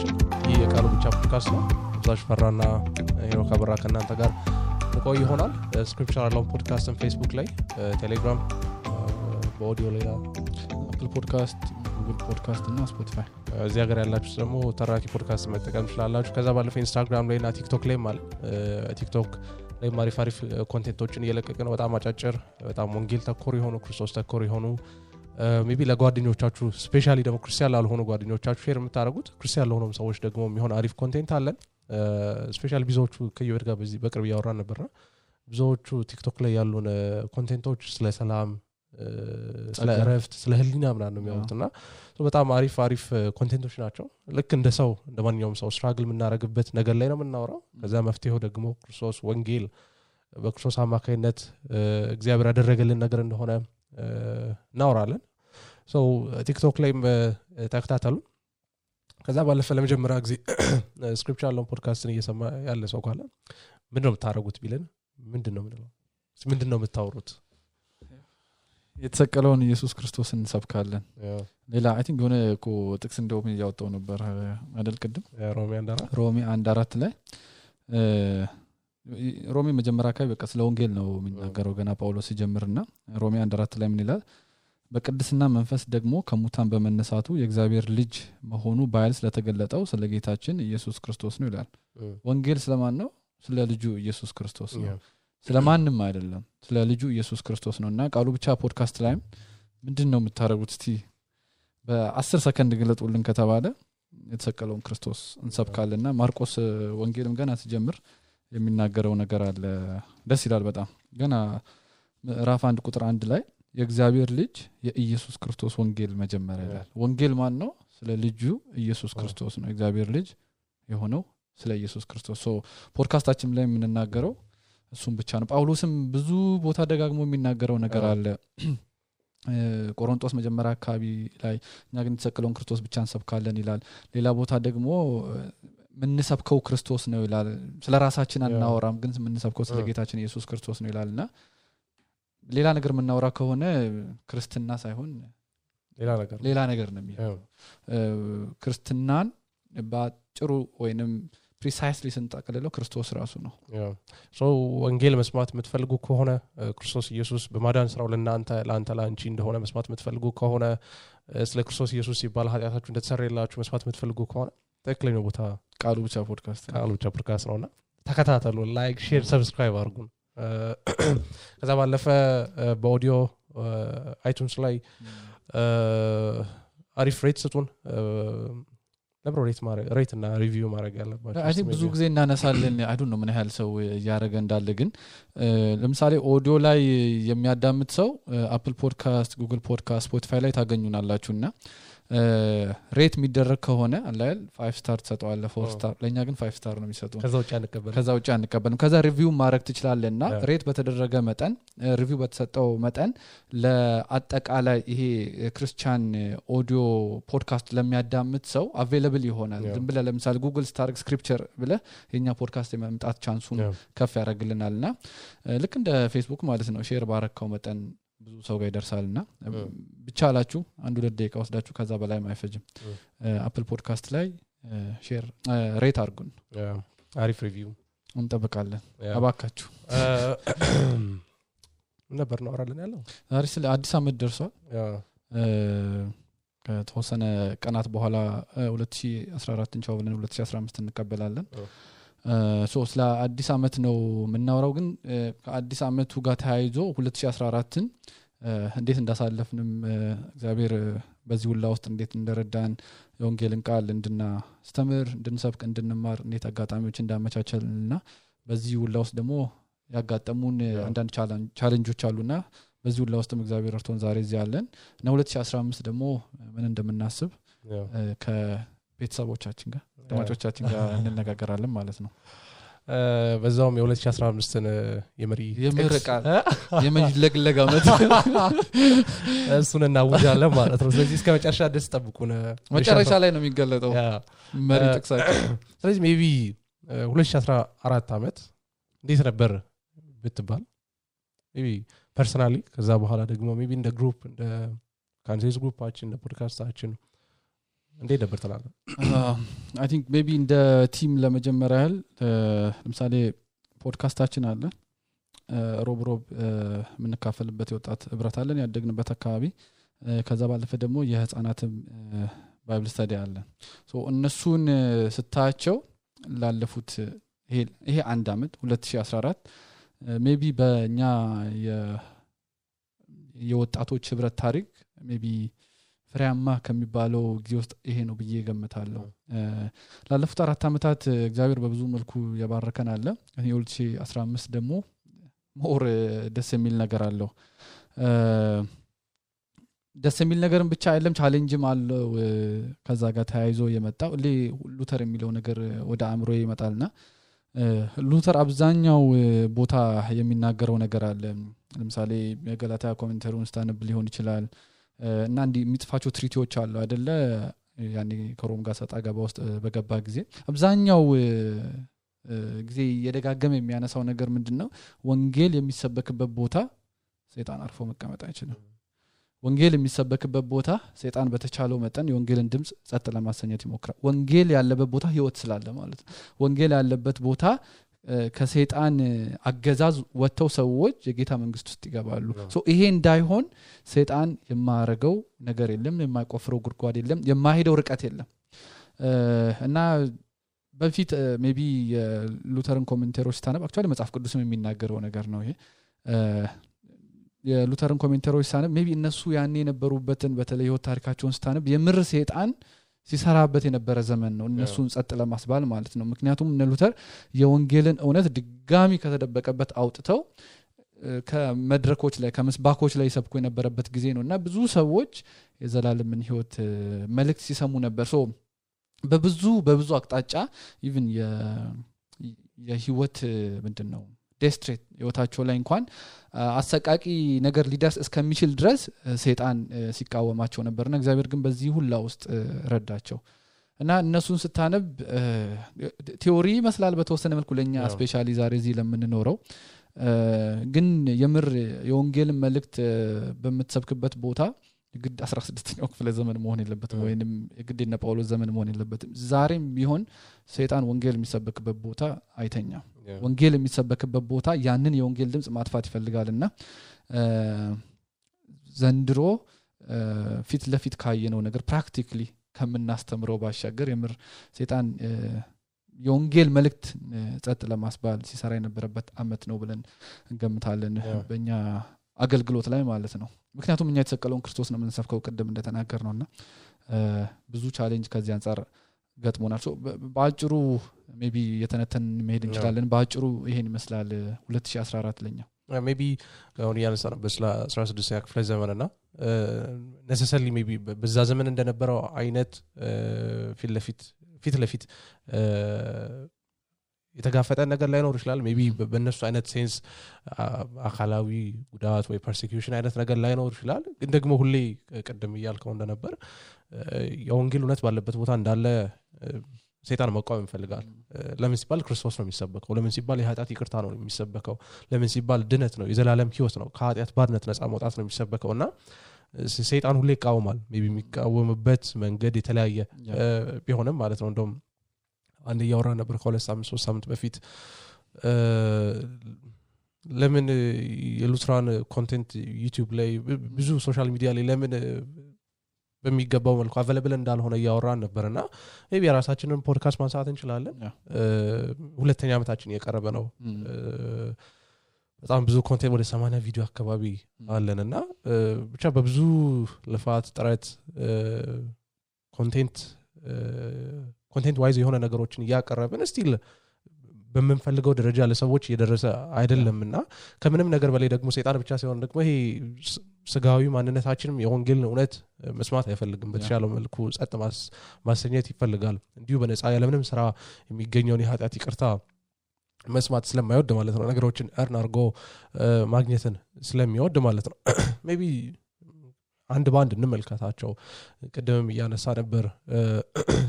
አድማጮቻችን ይህ የቃሉ ብቻ ፖድካስት ነው። ዛሽ ፈራና ሄኖክ አበራ ከእናንተ ጋር ቆይ ይሆናል። ስክሪፕቸር አለው ፖድካስትን ፌስቡክ ላይ፣ ቴሌግራም፣ በኦዲዮ ላይ አፕል ፖድካስት፣ ጉግል ፖድካስት እና ስፖቲፋይ። እዚህ ሀገር ያላችሁ ደግሞ ተራኪ ፖድካስት መጠቀም ትችላላችሁ። ከዛ ባለፈ ኢንስታግራም ላይ እና ቲክቶክ ላይ ማለት ቲክቶክ ላይ አሪፍ ኮንቴንቶችን እየለቀቅን ነው። በጣም አጫጭር በጣም ወንጌል ተኮር የሆኑ ክርስቶስ ተኮር የሆኑ ሜቢ ለጓደኞቻችሁ ስፔሻሊ ደግሞ ክርስቲያን ላልሆኑ ጓደኞቻችሁ ሼር የምታደርጉት ክርስቲያን ለሆኑም ሰዎች ደግሞ የሚሆን አሪፍ ኮንቴንት አለን። ስፔሻሊ ብዙዎቹ ከየወድ ጋር በዚህ በቅርብ ያወራን ነበርና ብዙዎቹ ቲክቶክ ላይ ያሉን ኮንቴንቶች ስለ ሰላም፣ ስለ እረፍት፣ ስለ ህሊና ምናምን ነው የሚያወጡና በጣም አሪፍ ኮንቴንቶች ናቸው። ልክ እንደ ሰው እንደማንኛውም ሰው ስትራግል የምናደርግበት ነገር ላይ ነው የምናወራው። ከዛ መፍትሄው ደግሞ ክርስቶስ ወንጌል በክርስቶስ አማካይነት እግዚአብሔር ያደረገልን ነገር እንደሆነ እናወራለን። ቲክቶክ ላይም ተከታተሉ። ከዛ ባለፈ ለመጀመሪያ ጊዜ ስክሪፕቸር አለው ፖድካስትን እየሰማ ያለ ሰው ካለ ምንድነው የምታረጉት ቢለን ምንድነው የምታወሩት? የተሰቀለውን ኢየሱስ ክርስቶስን እንሰብካለን። ሌላ አይ ቲንክ የሆነ እኮ ጥቅስ እንደውም ያወጣው ነበር አይደል? ቅድም ሮሜ 1:4 ላይ ሮሜ መጀመሪያ አካባቢ በቃ ስለ ወንጌል ነው የሚናገረው ገና ጳውሎስ ሲጀምርና ሮሜ 1:4 ላይ ምን ይላል? በቅድስና መንፈስ ደግሞ ከሙታን በመነሳቱ የእግዚአብሔር ልጅ መሆኑ በኃይል ስለተገለጠው ስለ ጌታችን ኢየሱስ ክርስቶስ ነው ይላል። ወንጌል ስለማን ነው? ስለ ልጁ ኢየሱስ ክርስቶስ ነው። ስለማንም አይደለም፣ ስለ ልጁ ኢየሱስ ክርስቶስ ነውና ቃሉ ብቻ ፖድካስት ላይ ምንድነው የምታረጉት? እስቲ በ10 ሰከንድ ግለጡልን ከተባለ የተሰቀለውን ክርስቶስ እንሰብካለንና ማርቆስ ወንጌልም ገና ሲጀምር የሚናገረው ነገር አለ። ደስ ይላል በጣም። ገና ምዕራፍ 1 ቁጥር 1 ላይ የእግዚአብሔር ልጅ የኢየሱስ ክርስቶስ ወንጌል መጀመሪያ ይላል። ወንጌል ማን ነው? ስለ ልጁ ኢየሱስ ክርስቶስ ነው። እግዚአብሔር ልጅ የሆነው ስለ ኢየሱስ ክርስቶስ። ፖድካስታችን ላይ የምንናገረው እሱም ብቻ ነው። ጳውሎስም ብዙ ቦታ ደጋግሞ የሚናገረው ነገር አለ። ቆሮንቶስ መጀመሪያ አካባቢ ላይ እኛ ግን የተሰቀለውን ክርስቶስ ብቻ እንሰብካለን ይላል። ሌላ ቦታ ደግሞ ምንሰብከው ክርስቶስ ነው ይላል። ስለ ራሳችን አናወራም፣ ግን ምንሰብከው ስለ ጌታችን ኢየሱስ ክርስቶስ ነው ይላልና ሌላ ነገር ምናወራ ከሆነ ክርስትና ሳይሆን ሌላ ነገር ነው የሚሆነው። ክርስትናን ባጭሩ ወይንም ፕሪሳይስሊ ስንጠቅልለው ክርስቶስ ራሱ ነው። ወንጌል መስማት የምትፈልጉ ከሆነ ክርስቶስ ኢየሱስ በማዳን ስራው ለአንተ ላንቺ እንደሆነ መስማት የምትፈልጉ ከሆነ ስለ ክርስቶስ ኢየሱስ ሲባል ኃጢአታችሁ እንደተሰረየላችሁ መስማት የምትፈልጉ ከሆነ ትክክለኛው ቦታ ቃሉ ብቻ ፖድካስት ነውና ተከታተሉ። ላይክ፣ ሼር፣ ሰብስክራይብ አድርጉን። ከዛ ባለፈ በኦዲዮ አይቱንስ ላይ አሪፍ ሬት ስጡን። ሬት እና ሪቪው ማድረግ ያለባችሁ አይ ቲንክ ብዙ ጊዜ እናነሳለን። አይ ዶንት ኖ ምን ያህል ሰው ያረገ እንዳለ፣ ግን ለምሳሌ ኦዲዮ ላይ የሚያዳምጥ ሰው አፕል ፖድካስት፣ ጉግል ፖድካስት፣ ስፖቲፋይ ላይ ታገኙናላችሁና ሬት የሚደረግ ከሆነ አላል 5 ስታር ተሰጠዋለ 4 ስታር። ለኛ ግን 5 ስታር ነው የሚሰጡን። ከዛ ውጪ አንቀበልም። ከዛ ሪቪው ማድረግ ትችላለና ሬት በተደረገ መጠን ሪቪው በተሰጠው መጠን ለአጠቃላይ ይሄ ክርስቲያን ኦዲዮ ፖድካስት ለሚያዳምጥ ሰው አቬሌብል ይሆናል። ዝም ብለ ለምሳሌ ጉግል ስታር ስክሪፕቸር ብለ የኛ ፖድካስት የመምጣት ቻንሱን ከፍ ያደርግልናልና ልክ እንደ ፌስቡክ ማለት ነው። ሼር ባረከው መጠን ብዙ ሰው ጋር ይደርሳልና ብቻ አላችሁ 1-2 ደቂቃ ወስዳችሁ ከዛ በላይ ማይፈጅም አፕል ፖድካስት ላይ ሼር ሬት አድርጉን። አሪፍ ሪቪው እንጠብቃለን። አባካችሁ ነበር ነው አራለን ያለው ዛሬ ስለ አዲስ አመት ደርሷል። ከተወሰነ ቀናት በኋላ 2014 እንቻው ብለን 2015 እንቀበላለን። ስለ አዲስ አመት ነው የምናወራው። ግን ከአዲስ አመቱ ጋር ተያይዞ 2014ን እንዴት እንዳሳለፍንም እግዚአብሔር በዚህ ሁላ ውስጥ እንዴት እንደረዳን የወንጌልን ቃል እንድናስተምር፣ እንድንሰብክ፣ እንድንማር እንዴት አጋጣሚዎች እንዳመቻቸልና በዚህ ሁላ ውስጥ ደግሞ ያጋጠሙን አንዳንድ ቻሌንጆች አሉና በዚህ ሁላ ውስጥም እግዚአብሔር ረድቶን ዛሬ እዚህ ያለን እና 2015 ደግሞ ምን እንደምናስብ ከቤተሰቦቻችን ጋር ተማሪዎቻችን ጋር እንነጋገራለን ማለት ነው። በዛውም የ2015ን የምርቃት የመጅለግለግ አመት እሱን እናውጃለን ማለት ነው። ስለዚህ እስከ መጨረሻ ድረስ ጠብቁን። መጨረሻ ላይ ነው የሚገለጠው መሪ ጥቅሳችን። ስለዚህ ሜቢ 2014 አመት እንዴት ነበር ብትባል ሜቢ ፐርሰናሊ፣ ከዛ በኋላ ደግሞ ሜቢ እንደ ግሩፕ እንደ ካንቴስ ግሩፓችን እንደ ፖድካስታችን እንዴት ነበር ተላለ? I think maybe እንደ ቲም ለመጀመሪያ ያህል ለምሳሌ ፖድካስታችን አለ ሮብ የምንካፈልበት የወጣት ህብረት አለን ያደግንበት አካባቢ ከዛ ባለፈ ደግሞ የህፃናትም ባይብል ስታዲ አለ ሶ እነሱን ስታያቸው ላለፉት ይሄ አንድ አመት 2014 ሜቢ በእኛ የወጣቶች ህብረት ታሪክ ሜቢ ፍሬያማ ከሚባለው ጊዜ ውስጥ ይሄ ነው ብዬ ገምታለሁ ላለፉት 4 አመታት እግዚአብሔር በብዙ መልኩ ያባረከን አለ 2015 ደግሞ ሞር ደስ የሚል ነገር አለው ደስ የሚል ነገርም ብቻ አይደለም ቻሌንጅም አለው ከዛ ጋር ተያይዞ የመጣው ሉተር የሚለው ነገር ወደ አእምሮ ይመጣልና ሉተር አብዛኛው ቦታ የሚናገረው ነገር አለ ለምሳሌ የገላትያ ኮሜንተሪውን ስታነብ ሊሆን ይችላል እና እንዲ የሚጽፋቸው ትሪቲዎች አሉ አይደለ ያኔ ከሮም ጋር ሰጣ ገባ ውስጥ በገባ ጊዜ አብዛኛው ጊዜ የደጋገመ የሚያነሳው ነገር ምንድነው ወንጌል የሚሰበክበት ቦታ ሰይጣን አርፎ መቀመጥ አይችልም ወንጌል የሚሰበክበት ቦታ ሰይጣን በተቻለው መጠን የወንጌልን ድምጽ ጸጥ ለማሰኘት ይሞክራል ወንጌል ያለበት ቦታ ህይወት ስላለ ማለት ነው ወንጌል ያለበት ቦታ ከሰይጣን አገዛዝ ወጥተው ሰዎች የጌታ መንግስት ውስጥ ይገባሉ ሶ ይሄ እንዳይሆን ሰይጣን የማያረገው ነገር የለም የማይቆፍረው ጉድጓድ የለም የማይሄደው ርቀት የለም እና በፊት ሜቢ የሉተርን ኮሜንተሮች ታነብ አክቹአሊ መጽሐፍ ቅዱስም የሚናገረው ነገር ነው ይሄ የሉተርን ኮሜንተሮች ታነብ ሜቢ እነሱ ያኔ የነበሩበትን በተለይ ህይወት ታሪካቸውን ስታነብ የምር ሰይጣን ሲሰራበት የነበረ ዘመን ነው እነሱን ጸጥ ለማስባል ማለት ነው ምክንያቱም እነ ሉተር የወንጌልን እውነት ድጋሚ ከተደበቀበት አውጥተው ከመድረኮች ላይ ከመስባኮች ላይ ሰብኮ የነበረበት ጊዜ ነውና ብዙ ሰዎች የዘላለምን ህይወት መልእክት ሲሰሙ ነበር ሶ በብዙ አቅጣጫ ኢቭን የህይወት ምንድነው ዴስትሬት ህይወታቸው ላይ እንኳን አሰቃቂ ነገር ሊደርስ እስከሚችል ድረስ ሰይጣን ሲቃወማቸው ነበርና እግዚአብሔር ግን በዚህ ሁላ ውስጥ ረዳቸው እና እነሱን ስታነብ ቲዮሪ መስላል በተወሰነ መልኩ ለኛ ስፔሻሊ ዛሬ እዚህ ለምንኖረው ግን የምር የወንጌልን መልእክት በመተሰብክበት ቦታ ግድ 16ኛው ክፍለ ዘመን መሆን የለበትም ወይንም ግድና ጳውሎስ ዘመን መሆን የለበትም ዛሬም ቢሆን ሰይጣን ወንጌል የሚሰበክበት ቦታ አይተኛም ወንጌል የሚሰበክበት ቦታ ያንን የወንጌል ድምጽ ማጥፋት ይፈልጋልና ዘንድሮ ፊት ለፊት ካየነው ነገር ፕራክቲካሊ ከምናስተምረው ባሻገር የምር ሰይጣን የወንጌል መልእክት ጸጥ ለማስባል ሲሰራ የነበረበት አመት ነው ብለን እንገምታለን በእኛ አገልግሎት ላይ ማለት ነው ምክንያቱም እኛ የተሰቀለውን ክርስቶስ ነው የምንሰብከው ቅድም እንደተናገር ነውና ብዙ ቻሌንጅ ከዚህ አንፃር ገጥሞናል በአጭሩ ሜቢ የተነተን መሄድ እንችላለን በአጭሩ ይሄን ይመስላል 2014 ለኛ ሜቢ አሁን ያነሳን በስላ 16ኛ ክፍለ ዘመንና necessarily maybe በዛ ዘመን እንደነበረው አይነት ፊት ለፊት የተጋፈጠ ነገር ላይ ነው ይችላል ሜቢ በእነሱ አይነት ሴንስ አካላዊ ጉዳት ወይ ፐርሲኪዩሽን አይነት ነገር ላይ ነው ይችላል ግን ደግሞ ሁሌ ቀደም ይያልከው እንደነበር የወንጌል እውነት ባለበት ቦታ እንዳለ ሰይጣን መቃወም ይፈልጋል ለምን ሲባል ክርስቶስ ነው የሚሰበከው ለምን ሲባል የኃጢአት ይቅርታ ነው የሚሰበከው ለምን ሲባል ድነት ነው የዘላለም ህይወት ነው ከኃጢአት ባርነት ነፃ መውጣት ነው የሚሰበከውና ሰይጣን ሁሌ ይቃወማል ሜቢ የሚቃወምበት መንገድ የተለያየ ቢሆንም ማለት ነው እንደውም አንድ ያወራ ነበር ከሁለት ሳምንት 3 ሳምንት በፊት ለምን የሉትራን ኮንቴንት ዩቲዩብ ላይ ብዙ ሶሻል ሚዲያ ላይ ለምን በሚገባው መልኩ አቬለብል እንዳልሆነ ያወራን ነበርና ሜቢ የራሳችንን ፖድካስት ማንሳት እንችላለን ሁለተኛ አመታችን የቀረበ ነው በጣም ብዙ ኮንቴንት ወደ 80 ቪዲዮ አካባቢ አለንና ብቻ በብዙ ልፋት ጥረት ኮንቴንት ዋይዝ የሆነ ነገሮችን ያቀረብን ስቲል በመንፈልገው ደረጃ ለሰዎች እየደረሰ አይደለምና ከምንም ነገር በላይ ደግሞ ሰይጣን ብቻ ሳይሆን ደግሞ ይሄ ስጋዊ ማንነታችንም የወንጌልን እውነት መስማት አይፈልግም በተሻለው መልኩ ጸጥ ማሰኘት ይፈልጋል እንዲሁ በነፃ ያለምንም ስራ የሚገኘውን የኃጢአት ይቅርታ መስማት ስለማይወድ ማለት ነው ነገሮችን እርን አርጎ ማግኘትን ስለሚወድ ማለት ነው ሜቢ አንድ ባንድ እንመልከታቸው ቀደም ያነሳ ነበር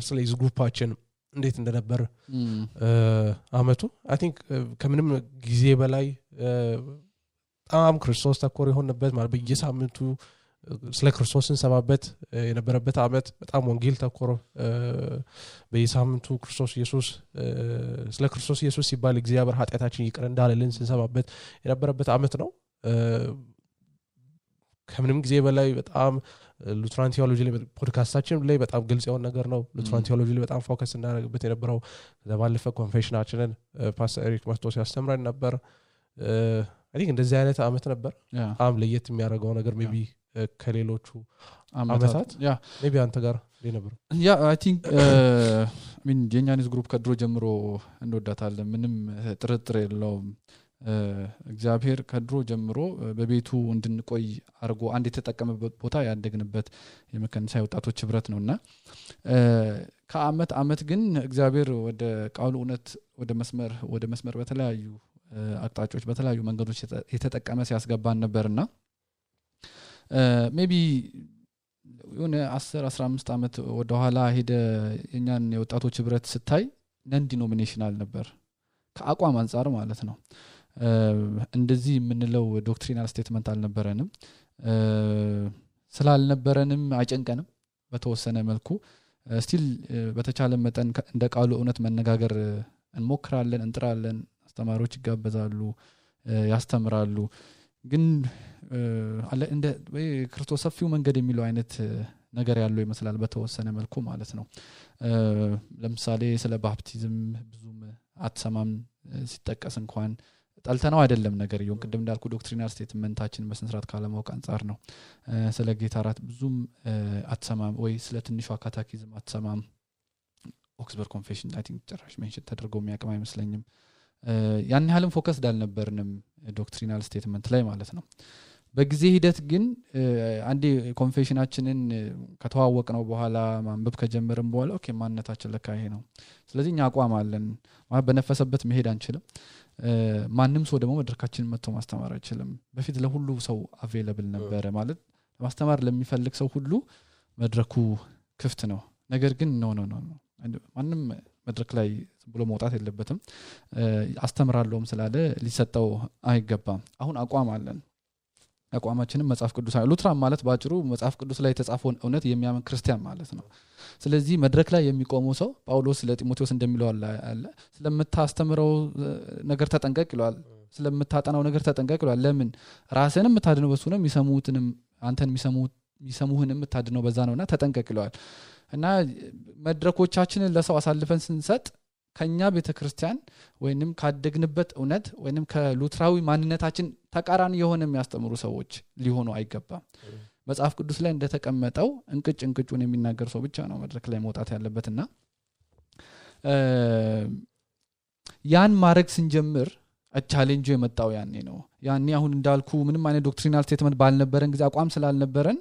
ስለዚህ ግሩፓችን እንዴት እንደነበር አመቱ አይ ቲንክ ከምንም ጊዜ በላይ በጣም ክርስቶስ ተኮር የሆነበት ማለት በየሳምንቱ ስለ ክርስቶስ እንሰማበት የነበረበት አመት በጣም ወንጌል ተኮር በየሳምንቱ ክርስቶስ ኢየሱስ ስለ ክርስቶስ ኢየሱስ ሲባል እግዚአብሔር ኃጢአታችን ይቅር እንዳለልን ስንሰማበት የነበረበት አመት ነው ከምንም ጊዜ በላይ በጣም ሉትራን ቴዎሎጂ ላይ ፖድካስታችን ላይ በጣም ግልጽ የሆነ ነገር ነው ሉትራን ቴዎሎጂ ላይ በጣም ፎከስ እናደርግበት የነበረው ዘባለፈ ኮንፌሽናችንን ፓስተር ኤሪክ መስቶስ ያስተምረን ነበር አይ ቲንክ እንደዚህ አይነት አመት ነበር በጣም ለየት የሚያደርገው ነገር ሜቢ ከሌሎቹ አመታት ሜቢ አንተ ጋር ነበር አይ ቲንክ ሚን የኛኒስ ግሩፕ ከድሮ ጀምሮ እንወዳታለን ምንም ጥርጥር የለውም እግዚአብሔር ከድሮ ጀምሮ በቤቱ እንድንቆይ አርጎ አንድ የተጠቀመበት ቦታ ያደግንበት የመከንሳ ወጣቶች ህብረት ነውና ከአመት ግን እግዚአብሔር ወደ ቃሉ እውነት ወደ መስመር በተለያዩ አቅጣጫዎች በተለያዩ መንገዶች የተጠቀመ ሲያስገባን ነበርና ሜቢ የሆነ 10-15 አመት ወደ ኋላ ሄደ የኛን የወጣቶች ህብረት ስታይ ነን ዲኖሚኔሽናል ነበር ከአቋም አንፃር ማለት ነው እንደዚህ የምንለው ዶክትሪናል ስቴትመንት አልነበረንም ስላልነበረንም አይጨንቀንም በተወሰነ መልኩ ስቲል በተቻለ መጠን እንደ ቃሉ እውነት መነጋገር እንሞክራለን እንጥራለን አስተማሪዎች ይጋበዛሉ ያስተምራሉ ግን አለ እንደ ክርስቶስ ሰፊው መንገድ የሚለው አይነት ነገር ያለው ይመስላል በተወሰነ መልኩ ማለት ነው ለምሳሌ ስለ ባፕቲዝም ብዙም አትሰማም ሲጠቀስ እንኳን ጣልተናው አይደለም ነገር ይሁን ቅድም እንዳልኩ ዶክትሪናል ስቴትመንታችን በስንስራት ካለማውቅ አንፃር ነው ስለ ጌታ ራት ብዙም አትሰማም ወይ ስለ ትንሿ ካታኪዝም አትሰማም ኦክስበርግ ኮንፌሽን አይ ቲንክ ጨራሽ ሜንሽን ተደርጎ የሚያቀም አይመስለኝም ያን ያህልም ፎከስ ዳልነበርንም ዶክትሪናል ስቴትመንት ላይ ማለት ነው በጊዜ ሂደት ግን አንዴ ኮንፌሽናችንን ከተዋወቅነው በኋላ ማንበብ ከጀመረን በኋላ ኦኬ ማንነታችን ለካ ይሄ ነው ስለዚህ እኛ አቋም አለን ማለት በነፈሰበት መሄድ አንችልም ማንንም ሰው ደግሞ መድረካችንን መጥቶ ማስተማር አይችልም በፊት ለሁሉ ሰው አቬሌብል ነበር ማለት ማስተማር ለሚፈልግ ሰው ሁሉ መድረኩ ክፍት ነው ነገር ግን ኖ ማንንም መድረክ ላይ ብሎ መውጣት የለበትም አስተምራለሁም ስላለ ሊሰጠው አይገባም አሁን አቋም አለን አቋማችንም መጽሐፍ ቅዱስ ሉትራን ማለት ባጭሩ መጽሐፍ ቅዱስ ላይ የተጻፈውን እውነት የሚያምን ክርስቲያን ማለት ነው ስለዚህ መድረክ ላይ የሚቆመው ሰው ጳውሎስ ለጢሞቴዎስ እንደሚለው አለ ስለምታስተምረው ነገር ተጠንቀቅ ይላል ስለምታጠናው ነገር ተጠንቀቅ ይላል ለምን ራስህንም የምታድነው በሱ ነው የሚሰሙትንም አንተን የሚሰሙህንም የምታድነው በዛ ነውና ተጠንቀቅ ይላል እና መድረኮቻችንን ለሰው አሳልፈን ስንሰጥ ከኛ ቤተክርስቲያን ወይንም ካደግንበት እውነት ወይንም ከሉትራዊ ማንነታችን ተቃራኒ የሆነ የሚያስተምሩ ሰዎች ሊሆኑ አይገባም መጽሐፍ ቅዱስ ላይ እንደተቀመጠው እንቅጩን የሚናገር ሰው ብቻ ነው መድረክ ላይ መውጣት ያለበትና ያን ማድረግ ስንጀምር ቻሌንጁ የመጣው ያኔ አሁን እንዳልኩ ምንም አይነት ዶክትሪናል ስቴትመንት ባልነበረን ጊዜ አቋም ስላልነበረን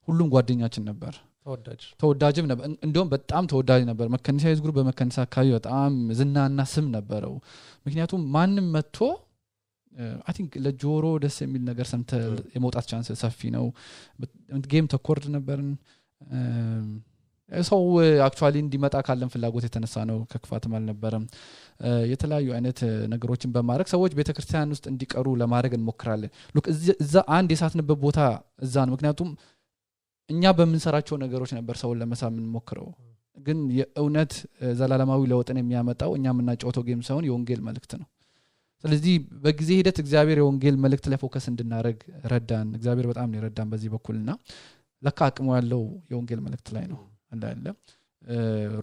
ሁሉም ጓደኛችን ነበር ተወዳጅም ነበር እንደውም በጣም ተወዳጅ ነበር መከንሳ ግሩፕ በመከንሳ አካባቢ በጣም ዝናና ስም ነበረው ምክንያቱም ማንንም መጥቶ አይ ቲንክ ለጆሮ ደስ የሚል ነገር ሰምተ የመውጣት ቻንስ ሰፊ ነው ጌም ተኮርድ ነበርን ሰው አክቹአሊ እንዲመጣ ካለን ፍላጎት የተነሳ ነው ከክፋትም አልነበረም የተለያዩ አይነት ነገሮችን በማድረግ ሰዎች ቤተክርስቲያን ውስጥ እንዲቀሩ ለማድረግ እንሞክራለን ሉክ እዛ አንድ የሳትንበት ቦታ እዛ ነው ምክንያቱም እኛ በመንሰራቸው ነገሮች ነበር ሰውን ለመሳምን ሞክረው ግን የእውነት ዘላለማዊ ለውጥን የሚያመጣው እኛ ምናጫውተው ጌም ሳይሆን የወንጌል መልእክት ነው ስለዚህ በጊዜ ሂደት እግዚአብሔር የወንጌል መልእክት ላይ ፎከስ እንድናረግ ረዳን እግዚአብሔር በጣም ነው ረዳን በዚህ በኩልና ለካ አቅሙ ያለው የወንጌል መልእክት ላይ ነው እንዳለ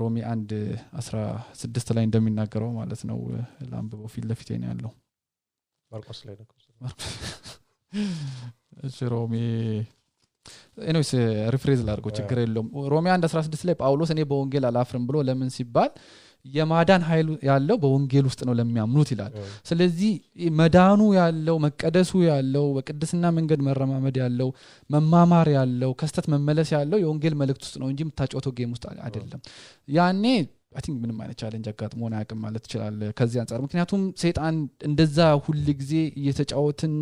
ሮሚ 1:16 ላይ እንደሚናገረው ማለት ነው ላምበው ፊት ለፊት ነው ያለው ማርቆስ ላይ ነው ሮሚ ኤኒዌይስ ሪፍሬዝ ላርጎ ችግር የለውም ሮሚ 1:16 ላይ ጳውሎስ እኔ በወንጌል አላፍርም ብሎ ለምን ሲባል የማዳን ኃይል ያለው በወንጌል ውስጥ ነው ለሚያምኑት ይላል ስለዚህ መዳኑ ያለው መቀደሱ ያለው በቅድስና መንገድ መረማመድ ያለው መማማር ያለው ከስተት መመለስ ያለው የወንጌል መልእክት ውስጥ ነው እንጂ የምታጫውተው ጌም ውስጥ አይደለም ያኔ አይ ቲንክ ምንም አይነት ቻሌንጅ አጋጥሞና ያቀም ማለት ይችላል ከዚህ አንፃር ምክንያቱም ሰይጣን እንደዛ ሁሉ ጊዜ እየተጫወትን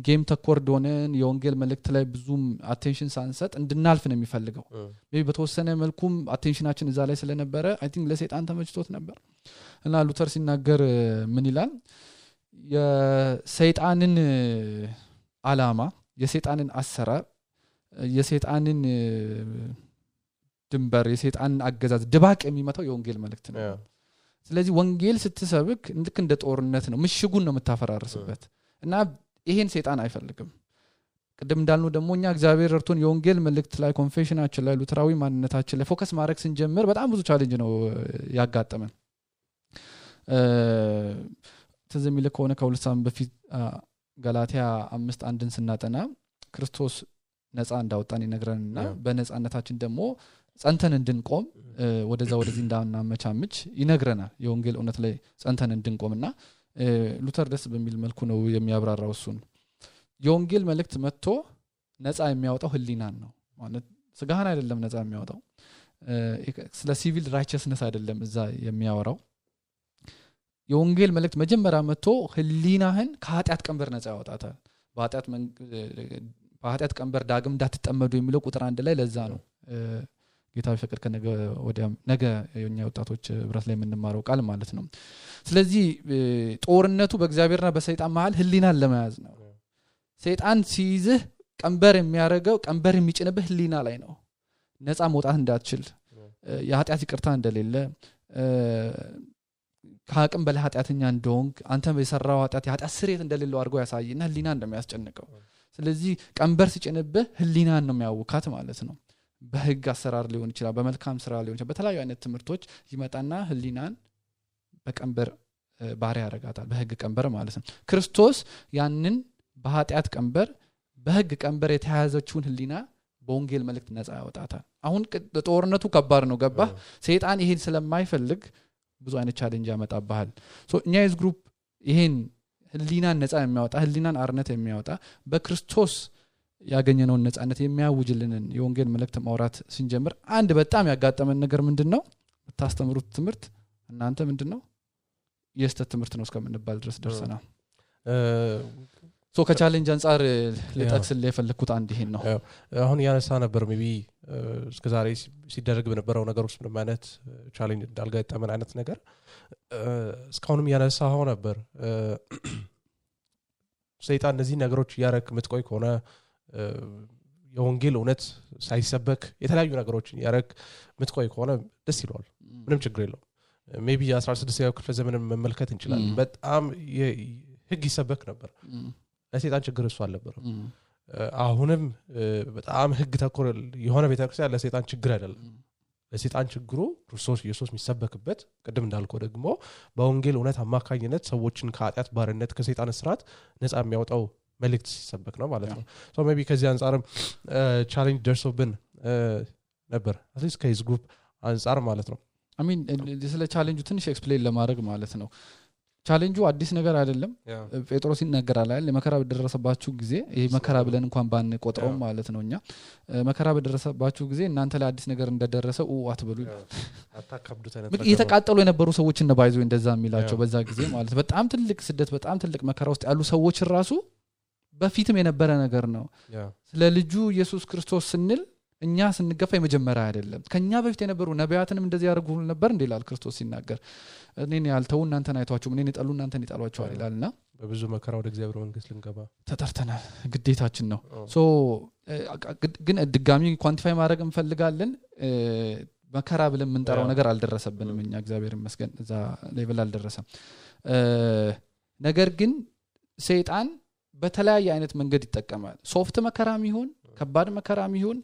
ጌም ተኮርድ ሆነን የወንጌል መልእክት ላይ ብዙም አቴንሽን ሳንሰጥ እንድናልፍ ነው የሚፈልገው ሜቢ በተወሰነ መልኩም አቴንሽናችን እዛ ላይ ስለነበረ አይ ቲንክ ለሰይጣን ተመችቶት ነበር እና ሉተር ሲናገር ምን ይላል የሰይጣንን አላማ የሰይጣንን አሰራር የሰይጣንን ድንበር የሰይጣን አገዛዝ ድባቅ የሚመታው የወንጌል መልእክት ነው ስለዚህ ወንጌል ስትሰብክ ልክ እንደ ጦርነት ነው ምሽጉን ነው የምታፈራርስበት እና ይሄን ሰይጣን አይፈልግም ቅድም እንዳልነው ደግሞ እኛ እግዚአብሔር እርቶን የወንጌል መልእክት ላይ ኮንፌሽናችን ላይ ሉተራዊ ማንነታችን ላይ ፎከስ ማድረግ ስንጀምር በጣም ብዙ ቻሌንጅ ነው ያጋጠመን ተዘም ይለ ከሆነ ከሁለት ሳምንት በፊት ገላትያ 5:1 ስናጠና ክርስቶስ ነፃ እንዳወጣን ይነግረንና በነፃነታችን ደግሞ ጸንተን እንድንቆም ወደዚህ እንዳናመቻምች ይነግረናል የወንጌል እውነት ላይ ጸንተን እንድንቆምና ሉተር ደስ በሚል መልኩ ነው የሚያብራራው እሱን የወንጌል መልእክት መጥቶ ነፃ የሚያወጣው ህሊናን ነው ማለት ስጋህን አይደለም ነፃ የሚያወጣው ስለ ሲቪል ራይቸስነስ አይደለም እዛ የሚያወራው የወንጌል መልእክት መጀመሪያ መጥቶ ህሊናህን ከኃጢአት ቀንበር ነፃ ያወጣታል በኃጢአት ቀንበር ዳግም እንዳትጠመዱ የሚለው ቁጥር 1 ላይ ለዛ ነው ጌታ ቢፈቅድ ከነገ ወዲያ ነገ የኛ ወጣቶች ብረት ላይ የምንማረው ቃል ማለት ነው ስለዚህ ጦርነቱ በእግዚአብሔርና በሰይጣን መሃል ህሊናን ለመያዝ ነው ሰይጣን ሲይዝህ ቀንበር የሚያረጋው ቀንበር የሚጭንብህ ህሊና ላይ ነው ነፃ መውጣት እንዳትችል የኃጢአት ይቅርታ እንደሌለ ከአቅም በላይ ኃጢአተኛ እንደሆንክ አንተ በሰራው የኃጢአት ስርየት እንደሌለው አድርጎ ያሳይና ህሊና እንደሚያስጨንቀው ስለዚህ ቀንበር ሲጭንብህ ህሊናን ነው የሚያውካት ማለት ነው በህግ አሰራር ሊሆን ይችላል በመልካም ስራ ሊሆን ይችላል በተለያዩ አይነት ትምህርቶች ይመጣና ህሊናን በቀንበር ባሪያ ያረጋታል በህግ ቀንበር ማለት ነው ክርስቶስ ያንን በኃጢአት ቀንበር በህግ ቀንበር የተያዘችውን ህሊና በወንጌል መልእክት ነፃ ያወጣታል አሁን ጦርነቱ ከባድ ነው ገባ ሰይጣን ይሄን ስለማይፈልግ ብዙ አይነት ቻሌንጅ ያመጣባል እኛ የዝ ግሩፕ ይሄን ህሊናን ነፃ የሚያወጣ ህሊናን አርነት የሚያወጣ በክርስቶስ ያገኘነው ነፃነት የሚያውጅልንን የወንጌል መልእክት ማውራት ስንጀምር አንድ በጣም ያጋጠመን ነገር ምንድነው ታስተምሩት ትምህርት እናንተ ምንድነው የስተት ትምህርት ነው እስከምንባል ድረስ ደርሰናል ከቻሌንጅ አንፃር ለጠቅስል የፈለኩት አንድ ይሄን ነው አሁን ያነሳ ነበር ሜቢ እስከዛሬ ሲደረግ በነበረው ነገር ውስጥ ምንም አይነት ቻሌንጅ እንዳልገጠመን አይነት ነገር እስካሁንም ያነሳው ነበር ሰይጣን እነዚህ ነገሮች ያረክ ምትቆይ ከሆነ የወንጌል እውነት ሳይሰበክ የተለያዩ ነገሮችን ያረክ ምትቆይ ከሆነ ደስ ይላል ምንም ችግር የለውም ሜቢ 16ኛው ክፍለ ዘመን መመልከት እንችላለን በጣም ህግ ይሰበክ ነበር ለሰይጣን ችግር እሱ አልነበረም አሁንም በጣም ህግ ተኮር የሆነ ቤተክርስቲያን ለሰይጣን ችግር አይደለም ለሰይጣን ችግሩ ክርስቶስ ኢየሱስ የሚሰበክበት ቅድም እንዳልከው ደግሞ በወንጌል እውነት አማካኝነት ሰዎችን ከኃጢአት ባርነት ከሰይጣን እስራት ነፃ የሚያወጣው መልእክት ሲሰበክ ነው ማለት ነው ሶ ሜቢ ከዚህ አንፃርም ቻሌንጅ ደርሶብን ነበር አትሊስት ከዚህ ግሩፕ አንፃር ማለት ነው አይ ሚን ስለ ቻሌንጁ ትንሽ ኤክስፕሌን ለማድረግ ማለት ነው ቻሌንጁ አዲስ ነገር አይደለም ጴጥሮስ ይናገራል አይደል መከራ በደረሰባችሁ ጊዜ ይሄ መከራ ብለን እንኳን ባንቆጥረው ማለት ነውኛ መከራ በደረሰባችሁ ጊዜ እናንተ ላይ አዲስ ነገር እንደደረሰው አትበሉ አታከብዱት አይነት የተቃጠሉ የነበሩ ሰዎች እና ባይዞ እንደዛ የሚላቸው በዛ ጊዜ ማለት በጣም ትልቅ ስደት በጣም ትልቅ መከራ ውስጥ ያሉ ሰዎች ራሱ በፊትም የነበረ ነገር ነው ስለ ልጁ ኢየሱስ ክርስቶስ ስንል እኛ ስንገፋ የመጀመሪያ አይደለም ከኛ በፊት የነበሩ ነቢያትንም እንደዚህ ያደርጉ ነበር እንደላል ክርስቶስ ሲናገር እኔን ያልተው እናንተን አይቷችሁ እኔን ይጣሉ እናንተን ይጣሏችሁ ይላልና በብዙ መከራ ወደ እግዚአብሔር መንግስት ልንገባ ተጠርተናል ግዴታችን ነው ሶ ግን ድጋሚ ኳንቲፋይ ማድረግ እንፈልጋለን መከራ ብለን ምንጠራው ነገር አልደረሰብንም እኛ እግዚአብሔር ይመስገን እዛ ሌቭል አልደረሰም ነገር ግን ሰይጣን በተለያየ አይነት መንገድ ይጠቀማል ሶፍት መከራም ይሁን ከባድ መከራም ይሁን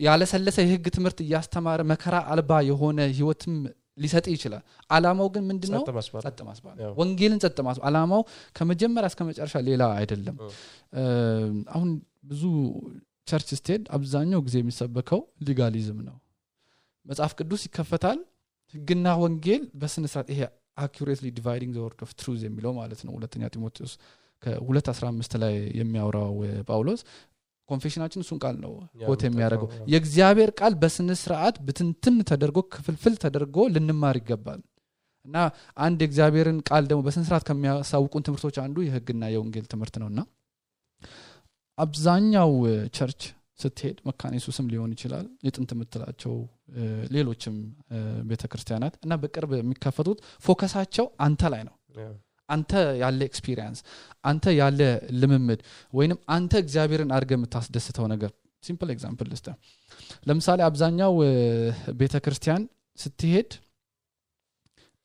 ያለሰለሰ የህግ ትምህርት ያስተማረ መከራ አልባ የሆነ ህይወትም ሊሰጥ ይችላል አላማው ግን ምንድነው ጸጥ ማስባል ወንጌልን ጸጥ ማስባል አላማው ከመጀመሪያ እስከ መጨረሻ ሌላ አይደለም አሁን ብዙ ቸርች ስቴድ አብዛኛው ጊዜ የሚሰበከው ሊጋሊዝም ነው መጽሐፍ ቅዱስ ይከፈታል ህግና ወንጌል በስነ ስርዓት ይሄ accurately dividing the word of truth የሚለው ማለት ነው ሁለተኛ ጢሞቴዎስ ከ2:15 ላይ የሚያወራው ጳውሎስ ኮንፌሽናችን እሱን ቃል ነው ኮት የሚያደርገው የእግዚአብሔር ቃል በስነ ስርዓት ብትንትን ተደርጎ ክፍልፍል ተደርጎ ልንማር ይገባል እና አንድ የእግዚአብሔርን ቃል ደግሞ በስነ ስርዓት ከሚያሳውቁን ትምህርቶች አንዱ የህግና የወንጌል ትምህርት ነውና አብዛኛው ቸርች ስትሄድ መካነ ኢየሱስም ሊሆን ይችላል የጥንት ምትላቸው ሌሎችም ቤተክርስቲያናት እና በቅርብ የሚከፈቱት ፎከሳቸው አንተ ላይ ነው አንተ ያለ ኤክስፒሪየንስ አንተ ያለ ልምምድ ወይንም አንተ እግዚአብሔርን አድርገህ የምታስደስተው ነገር ሲምፕል ኤግዛምፕል ልስጥ ለምሳሌ አብዛኛው ቤተክርስቲያን ስትሄድ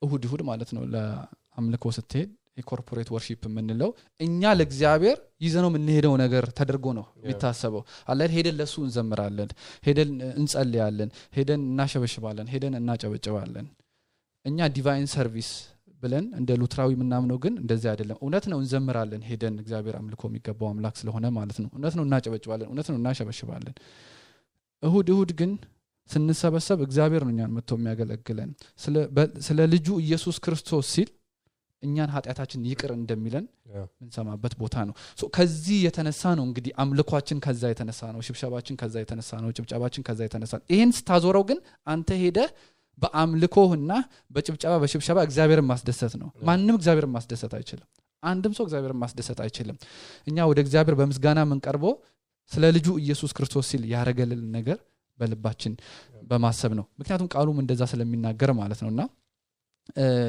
እሁድ ማለት ነው ለአምልኮ ስትሄድ የኮርፖሬት ወርሺፕ የምንለው እኛ ለእግዚአብሔር ይዘነው የምንሄደው ነገር ተደርጎ ነው የሚታሰበው አለ ሄደን ለሱ እንዘምራለን ሄደን እንጸልያለን ሄደን እናሸበሽባለን ሄደን እናጨበጭባለን እኛ ዲቫይን ሰርቪስ ብለን እንደ ሉትራዊ ምናምነው ግን እንደዚህ አይደለም እውነት ነው እንዘምራለን ሄደን እግዚአብሔር አምልኮ የሚገባው አምላክ ስለሆነ ማለት ነው እውነት ነው እናጨበጭባለን እውነት ነው እናሸበሽባለን እሁድ ግን ስንሰበሰብ እግዚአብሔር ነው እኛን መጥቶ የሚያገለግለን ስለ ልጁ ኢየሱስ ክርስቶስ ሲል እኛን ኃጢያታችን ይቅር እንደሚለን እንሰማበት ቦታ ነው ከዚህ የተነሳ ነው እንግዲህ አምልኳችን ከዛ የተነሳ ነው ሽብሸባችን ከዛ የተነሳ ነው ጭብጨባችን ከዛ የተነሳ ይሄን ስታዞረው ግን አንተ ሄደ በአምልኮህና በጭብጨባ በሽብሸባ እግዚአብሔርን ማስደሰት ነው ማንንም እግዚአብሔርን ማስደሰት አይችልም አንድም ሰው እግዚአብሔርን ማስደሰት አይችልም እኛ ወደ እግዚአብሔር በምስጋና መንቀርበው ስለ ልጁ ኢየሱስ ክርስቶስ ሲል ያረገልን ነገር በልባችን በማሰብ ነው ምክንያቱም ቃሉም እንደዛ ስለሚናገር ማለት ነውና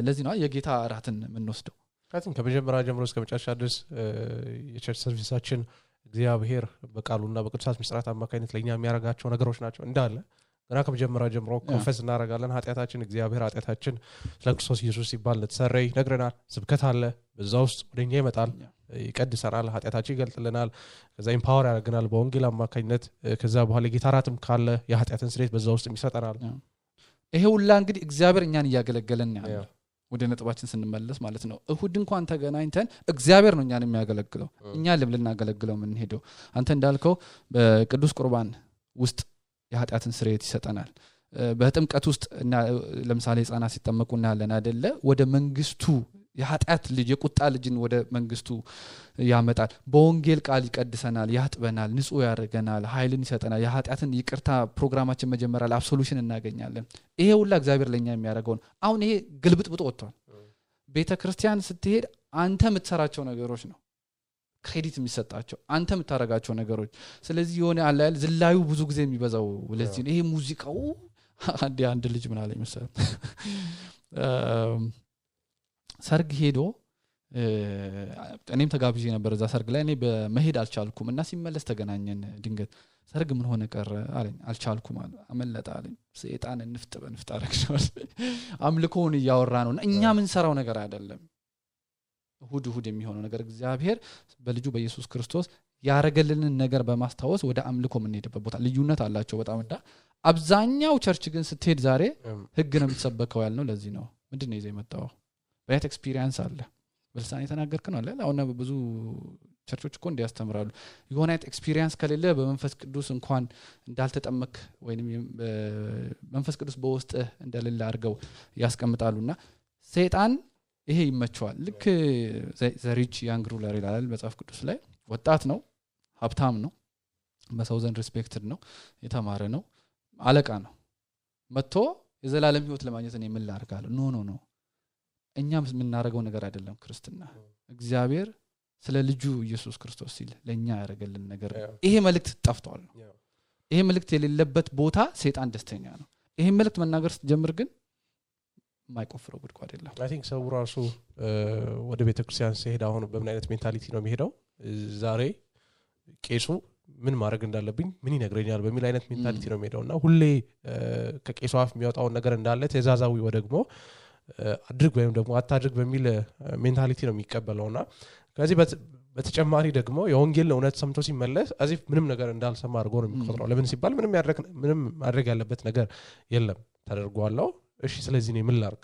ለዚህ ነው የጌታ እራትን የምንወስደው ካቲን ከመጀመሪያ ጀምሮ እስከ መጨረሻ ድረስ የቸርች ሰርቪሳችን እግዚአብሔር በቃሉና በቅዱሳት ምስጢራት አማካኝነት ለኛ የሚያረጋቸው ነገሮች ናቸው እንዳለ ገና ከመጀመሪያ ጀምሮ ኮንፈስ እናረጋለን ኃጢያታችን እግዚአብሔር ኃጢያታችን ለክርስቶስ ኢየሱስ ሲባል ለተሰረይ ነግረናል ስብከት አለ በዛ ውስጥ ወደኛ ይመጣል ይቀድሰናል ኃጢያታችን ይገልጥልናል ከዛ ኢምፓወር ያደርገናል በወንጌል አማካኝነት ከዛ በኋላ ጌታ እራትም ካለ የኃጢያትን ስርየት በዛ ውስጥ ይሰጠናል ይሄ ሁላ እንግዲህ እግዚአብሔር እኛን ያገለገለን ያለው ወደ ነጥባችን ስንመለስ ማለት ነው እሁድ እንኳን ተገናኝተን እግዚአብሔር ነው እኛን የሚያገለግለው እኛ ልናገለግለው ምን ሄደው አንተ እንዳልከው በቅዱስ ቁርባን ውስጥ የኃጢያትን ስርየት ይሰጠናል በጥምቀት ውስጥ ለምሳሌ ህፃናት ሲጠመቁና ያለን አይደለ ወደ መንግስቱ የኃጢያት ልጅ የቁጣ ልጅን ወደ መንግስቱ ያመጣል በወንጌል ቃል ይቀድሰናል ያጥበናል ንጹህ ያደርገናል ኃይልን ይሰጠናል የኃጢያትን ይቅርታ ፕሮግራማችን መጀመሪያ አብሶሉሽን እናገኛለን ይሄ ሁላ እግዚአብሔር ለኛ የሚያደርገው አሁን ይሄ ግልብጥብጥ ወጥቷል ቤተክርስቲያን ስትሄድ አንተ የምትሰራቸው ነገሮች ነው ክሬዲት የሚሰጣቸው አንተ የምታረጋቸው ነገሮች ስለዚህ የሆነ አላል ዝላዩ ብዙ ጊዜ የሚበዛው ለዚህ ይሄ ሙዚቃው አንድ ልጅ ምን አለኝ መሰለህ ሰርግ ሄዶ እኔም ተጋብዤ ነበር እዛ ሰርግ ላይ እኔ በመሄድ አልቻልኩም እና ሲመለስ ተገናኘን ድንገት ሰርግ ምን ሆነ ቀረ አለኝ አልቻልኩም አመለጣ አለኝ ሰይጣን እንፍጥ አረክሽዋል አምልኮውን ያወራ ነው እኛ ምን ሰራው ነገር አይደለም እሁድ የሚሆነው ነገር እግዚአብሔር በልጁ በኢየሱስ ክርስቶስ ያረገልንን ነገር በማስታወስ ወደ አምልኮ የምንሄድበት ቦታ ልዩነት አላቸው በጣም እንዳ አብዛኛው ቸርች ግን ስትሄድ ዛሬ ህግ ነው የሚሰበከው ያልነው ለዚህ ነው ምንድነው ይዘው የመጣው በየት ኤክስፒሪየንስ አለ በልሳን የተናገርክ ነው አለ አሁን ብዙ ቸርቾች እኮ እንዲያስተምራሉ የሆነ አይነት ኤክስፒሪየንስ ከሌለ በመንፈስ ቅዱስ እንኳን እንዳልተጠመክ ወይንም መንፈስ ቅዱስ በውስጥ እንደሌለ አድርገው ያስቀምጣሉና ሰይጣን ይሄ ይመቸዋል ልክ ዘሪች ያንግ ሩለር ይላል መጽሐፍ ቅዱስ ላይ ወጣት ነው ሀብታም ነው በሰው ዘንድ ሪስፔክትድ ነው የተማረ ነው አለቃ ነው መጥቶ የዘላለም ህይወት ለማግኘት እኔ ምን ላርጋለሁ ኖ እኛም የምናረጋው ነገር አይደለም ክርስትና እግዚአብሔር ስለ ልጁ ኢየሱስ ክርስቶስ ሲል ለኛ ያረጋልን ነገር ይሄ መልእክት ጠፍቷል ይሄ መልእክት የሌለበት ቦታ ሰይጣን ደስተኛ ነው ይሄ መልእክት መናገር ስትጀምር ግን ማይቆፍረው ጉድጓድ አይደለም አይ ቲንክ ሰው ራሱ ወደ ቤተክርስቲያን ሲሄድ አሁን በምን አይነት ሜንታሊቲ ነው የሚሄደው ዛሬ ቄሱ ምን ማድረግ እንዳለብኝ ምን ይነግረኛል በሚል አይነት ሜንታሊቲ ነው የሚሄደውና ሁሌ ከቄሱ አፍ የሚያወጣው ነገር እንዳለ ተዛዛዊ ወደግሞ አድርግ ወይም ደግሞ አታድርግ በሚል ሜንታሊቲ ነው የሚቀበለውና ከዚህ በተጨማሪ ደግሞ የወንጌል እውነት ሰምቶ ሲመለስ አዚፍ ምንም ነገር እንዳልሰማ አድርጎ ነው የሚቆጥረው ለምን ሲባል ምንም ማድረግ ያለበት ነገር የለም ተደርጓለው እሺ ስለዚህ ነው ምን ላርግ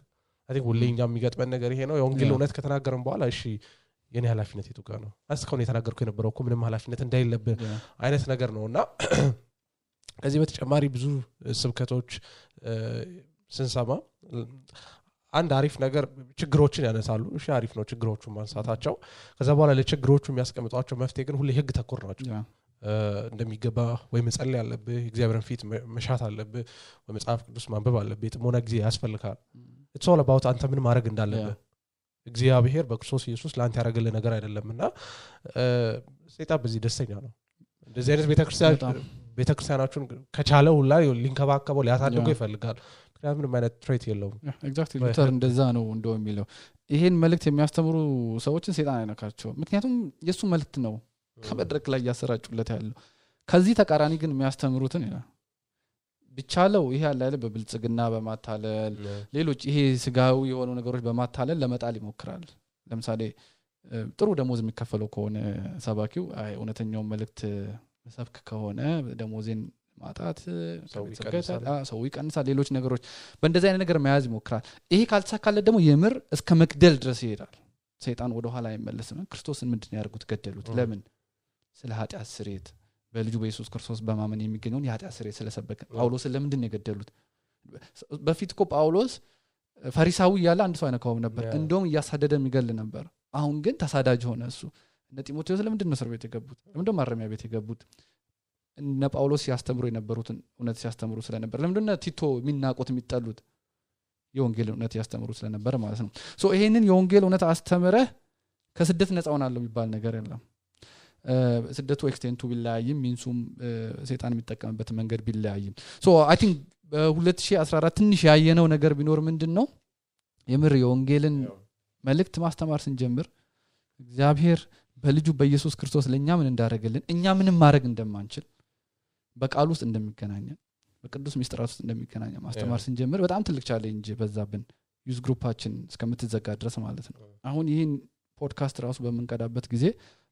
አይ ቲንክ ሁሌኛ የሚገጥመን ነገር ይሄ ነው የወንጌል እውነት ከተናገረን በኋላ እሺ የኔ ኃላፊነት የቱ ጋር ነው አስከውን የተናገርኩ የነበረው እኮ ምንም ኃላፊነት እንዳይለብህ አይነት ነገር ነውና ከዚህ በተጨማሪ ብዙ ስብከቶች ስንሰማ አንድ አሪፍ ነገር ችግሮችን ያነሳሉ እሺ አሪፍ ነው ችግሮቹን ማንሳታቸው ከዛ በኋላ ለችግሮቹ የሚያስቀምጧቸው መፍትሄ ግን ሁሌ ህግ ተኮር ናቸው እንደሚገባ ወይ መጸለይ ያለብህ እግዚአብሔርን ፊት መሻት አለብህ ወይ መጽሐፍ ቅዱስ ማንበብ አለብህ ጥሞና ጊዜ ያስፈልጋል it's all about አንተ ምን ማድረግ እንዳለብህ እግዚአብሔር በክርስቶስ ኢየሱስ ላንተ ያረጋለ ነገር አይደለምና ሰይጣን በዚህ ደስተኛ ነው እንደዚህ አይነት ቤተክርስቲያናችሁን ከቻለው ሁላ ሊንከባከበው ሊያሳድገው ይፈልጋል ምክንያቱም ምንም አይነት ትሬት የለውም ኤግዛክትሊ ሉተር እንደዛ ነው እንደው የሚለው ይሄን መልእክት የሚያስተምሩ ሰዎችን ሰይጣን አይነካቸው ምክንያቱም የሱ መልእክት ነው ከመድረክ ላይ ያሰራጩለት ያለው ከዚህ ተቃራኒ ግን የሚያስተምሩትን ይላል ብቻለው ይሄ ያለ አይደል በብልጽግና በማታለል ሌሎች ይሄ ስጋዊ የሆኑ ነገሮች በማታለል ለመጣል ይሞክራል ለምሳሌ ጥሩ ደሞዝ የሚከፈለው ከሆነ ሰባኪው አይ እውነተኛው መልእክት ሰብክ ከሆነ ደሞዜን ማጣት ሰው ይቀንሳል ሌሎች ነገሮች በእንደዚህ አይነት ነገር መያዝ ይሞክራል ይሄ ካልተሳካለ ደግሞ የምር እስከ መግደል ድረስ ይሄዳል ሰይጣን ወደ ኋላ አይመለስም ክርስቶስን ምንድነው ያርጉት ገደሉት ለምን ስለ ኃጢአት ስርየት በልጁ በኢየሱስ ክርስቶስ በማመን የሚገኘውን የኃጢአት ስርየት ስለሰበከ ጳውሎስ ለምንድነው የገደሉት በፊት እኮ ጳውሎስ ፈሪሳዊ ያለ አንድ ሰው አይነካውም ነበር እንደውም ያሳደደ የሚገል ነበር አሁን ግን ተሳዳጅ ሆነ እሱ እነ ጢሞቴዎስ ለምንድነው እስር ቤት የገቡት ለምንድነው ማረሚያ ቤት የገቡት እነ ጳውሎስ ያስተምሩ የነበሩትን እውነት ሲያስተምሩ ስለነበር ለምንድነው ቲቶ የሚናቆት የሚጠሉት የወንጌል እውነት ያስተምሩ ስለነበር ማለት ነው ሶ ይሄንን የወንጌል እውነት አስተምረህ ከስደት ነፃ ሆናለሁ የሚባል ነገር የለም ስደቱ ኤክስቴንቱ ቢለያይም ሚንሱም ሰይጣን የሚጠቀምበት መንገድ ቢለያይም ሶ አይ ቲንክ በ2014 ትንሽ ያየነው ነገር ቢኖር ምንድነው የምር የወንጌልን መልእክት ማስተማር ስንጀምር እግዚአብሔር በልጁ በኢየሱስ ክርስቶስ ለኛ ምን እንዳደረገልን እኛ ምንም ማድረግ እንደማንችል በቃል ውስጥ እንደሚገናኘን በቅዱስ ሚስጥራት ውስጥ እንደሚገናኘን ማስተማር ስንጀምር በጣም ትልቅ ቻሌንጅ በዛብን ዩዝ ግሩፓችን እስከምትዘጋ ድረስ ማለት ነው አሁን ይሄን ፖድካስት ራሱ በመንቀዳበት ጊዜ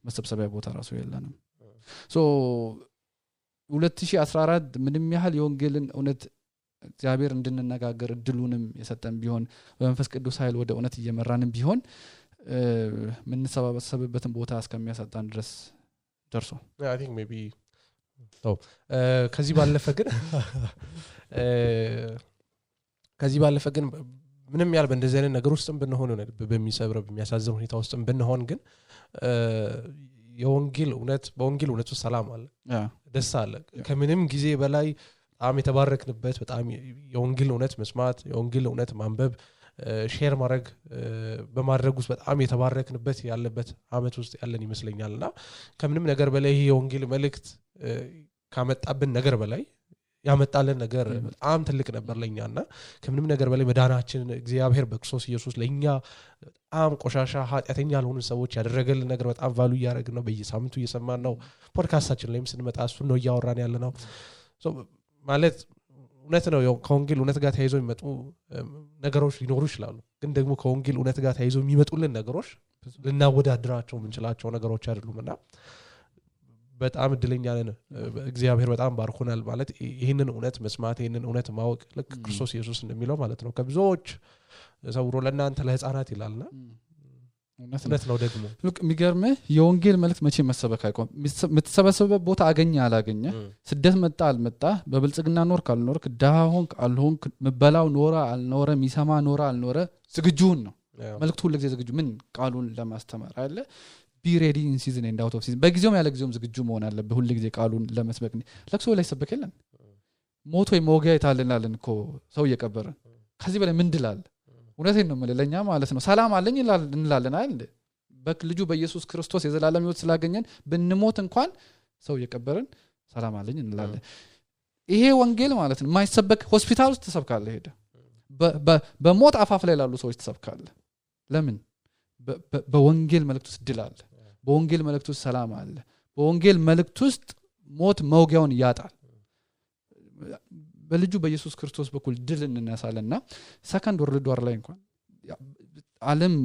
መሰብሰቢያ ቦታ ራሱ የለንም ሶ 2014 ምንም ያህል የወንጌልን እውነት እግዚአብሔር እንድንነጋገር እድሉንም የሰጠን ቢሆን በመንፈስ ቅዱስ ኃይል ወደ እውነት እየመራንም ቢሆን ምን ሰበሰበበትን ቦታ እስከሚያሳጣን ድረስ ደርሶ I think maybe ከዚህ ባለፈ ግን ምንም ያህል በእንደዚህ አይነት ነገር ውስጥም ብንሆን ነው በሚሰብረው በሚያሳዝን ሁኔታ ውስጥም ብንሆን ግን በወንጌል እውነት ውስጥ ሰላም አለ ደስ አለ ከምንም ጊዜ በላይ በጣም የተባረክንበት በጣም የወንጌል እውነት መስማት የወንጌል እውነት ማንበብ ሼር ማድረግ በማድረግ ውስጥ በጣም የተባረክንበት ያለበት አመት ውስጥ ያለን ይመስለኛልና ከምንም ነገር በላይ ይሄ የወንጌል መልእክት ካመጣብን ነገር በላይ ያመጣልን ነገር በጣም ትልቅ ነበር ለኛና ከምንም ነገር በላይ መዳናችን እግዚአብሔር በክርስቶስ ኢየሱስ ለኛ በጣም ቆሻሻ ኃጢአተኛ ያልሆኑ ሰዎች ያደረገልን ነገር በጣም ቫሉ ያደረግን ነው በየሳምንቱ እየሰማን ነው ፖድካስታችን ላይም ስንመጣ እሱ ነው ያወራን ያለነው ሶ ማለት እውነት ነው ከወንጌል እውነት ጋር ተያይዞ የሚመጡ ነገሮች ሊኖሩ ይችላሉ ግን ደግሞ ከወንጌል እውነት ጋር ተያይዞ የሚመጡልን ነገሮች ልናወዳድራቸው ምንችላቸው ነገሮች አይደሉምና በጣም እድለኛ ነን እግዚአብሔር በጣም ባርኮናል ማለት ይሄንን እውነት መስማት ይሄንን እውነት ማወቅ ለክ ክርስቶስ ኢየሱስ እንደሚለው ማለት ነው ከብዙዎች ሰውሮ ለእናንተ ለህፃናት ይላልና እውነት ነው ደግሞ ልክ የሚገርምህ የወንጌል መልእክት መቼ መሰበክ አይቆም የምትሰበሰበበት ቦታ አገኘ አላገኘ ስደት መጣ አልመጣ በብልጽግና ኖር ካልኖርክ ዳሆንክ አልሆንክ መበላው ኖራ አልኖረ ሚሰማ ኖራ አልኖረ ዝግጁን ነው መልእክቱ ሁሉ ጊዜ ዝግጁ ምን ቃሉን ለማስተማር አይደለ be ready in season and out of season በጊዜውም ያለ ጊዜውም ዝግጁ መሆን አለበት ሁሉ ጊዜ ቃሉን ለመስበክ ለክሶ ላይ ሰበከለን ሞቶ የሞጊያ ይታልናልን እኮ ሰው እየቀበረ ከዚህ በላይ ምን ድላል እውነቴን ነው ለኛ ማለት ነው ሰላም አለኝ እንላለን አይደል በልጁ በኢየሱስ ክርስቶስ የዘላለም ሕይወት ስላገኘን ብንሞት እንኳን ሰው እየቀበረን ሰላም አለኝ እንላለን ይሄ ወንጌል ማለት ነው ማይሰበክ ሆስፒታል ውስጥ ተሰብካለ ሄደ በሞት አፋፍ ላይ ያሉ ሰዎች ተሰብካለ ለምን በወንጌል መልእክት ውስጥ ድል አለ በወንጌል መልእክት ውስጥ ሰላም አለ በወንጌል መልእክት ውስጥ ሞት መውጊያውን ያጣል በልጁ በኢየሱስ ክርስቶስ በኩል ድል እንነሳለና ሰከንድ ወርልድ ዋር ላይ እንኳን ዓለም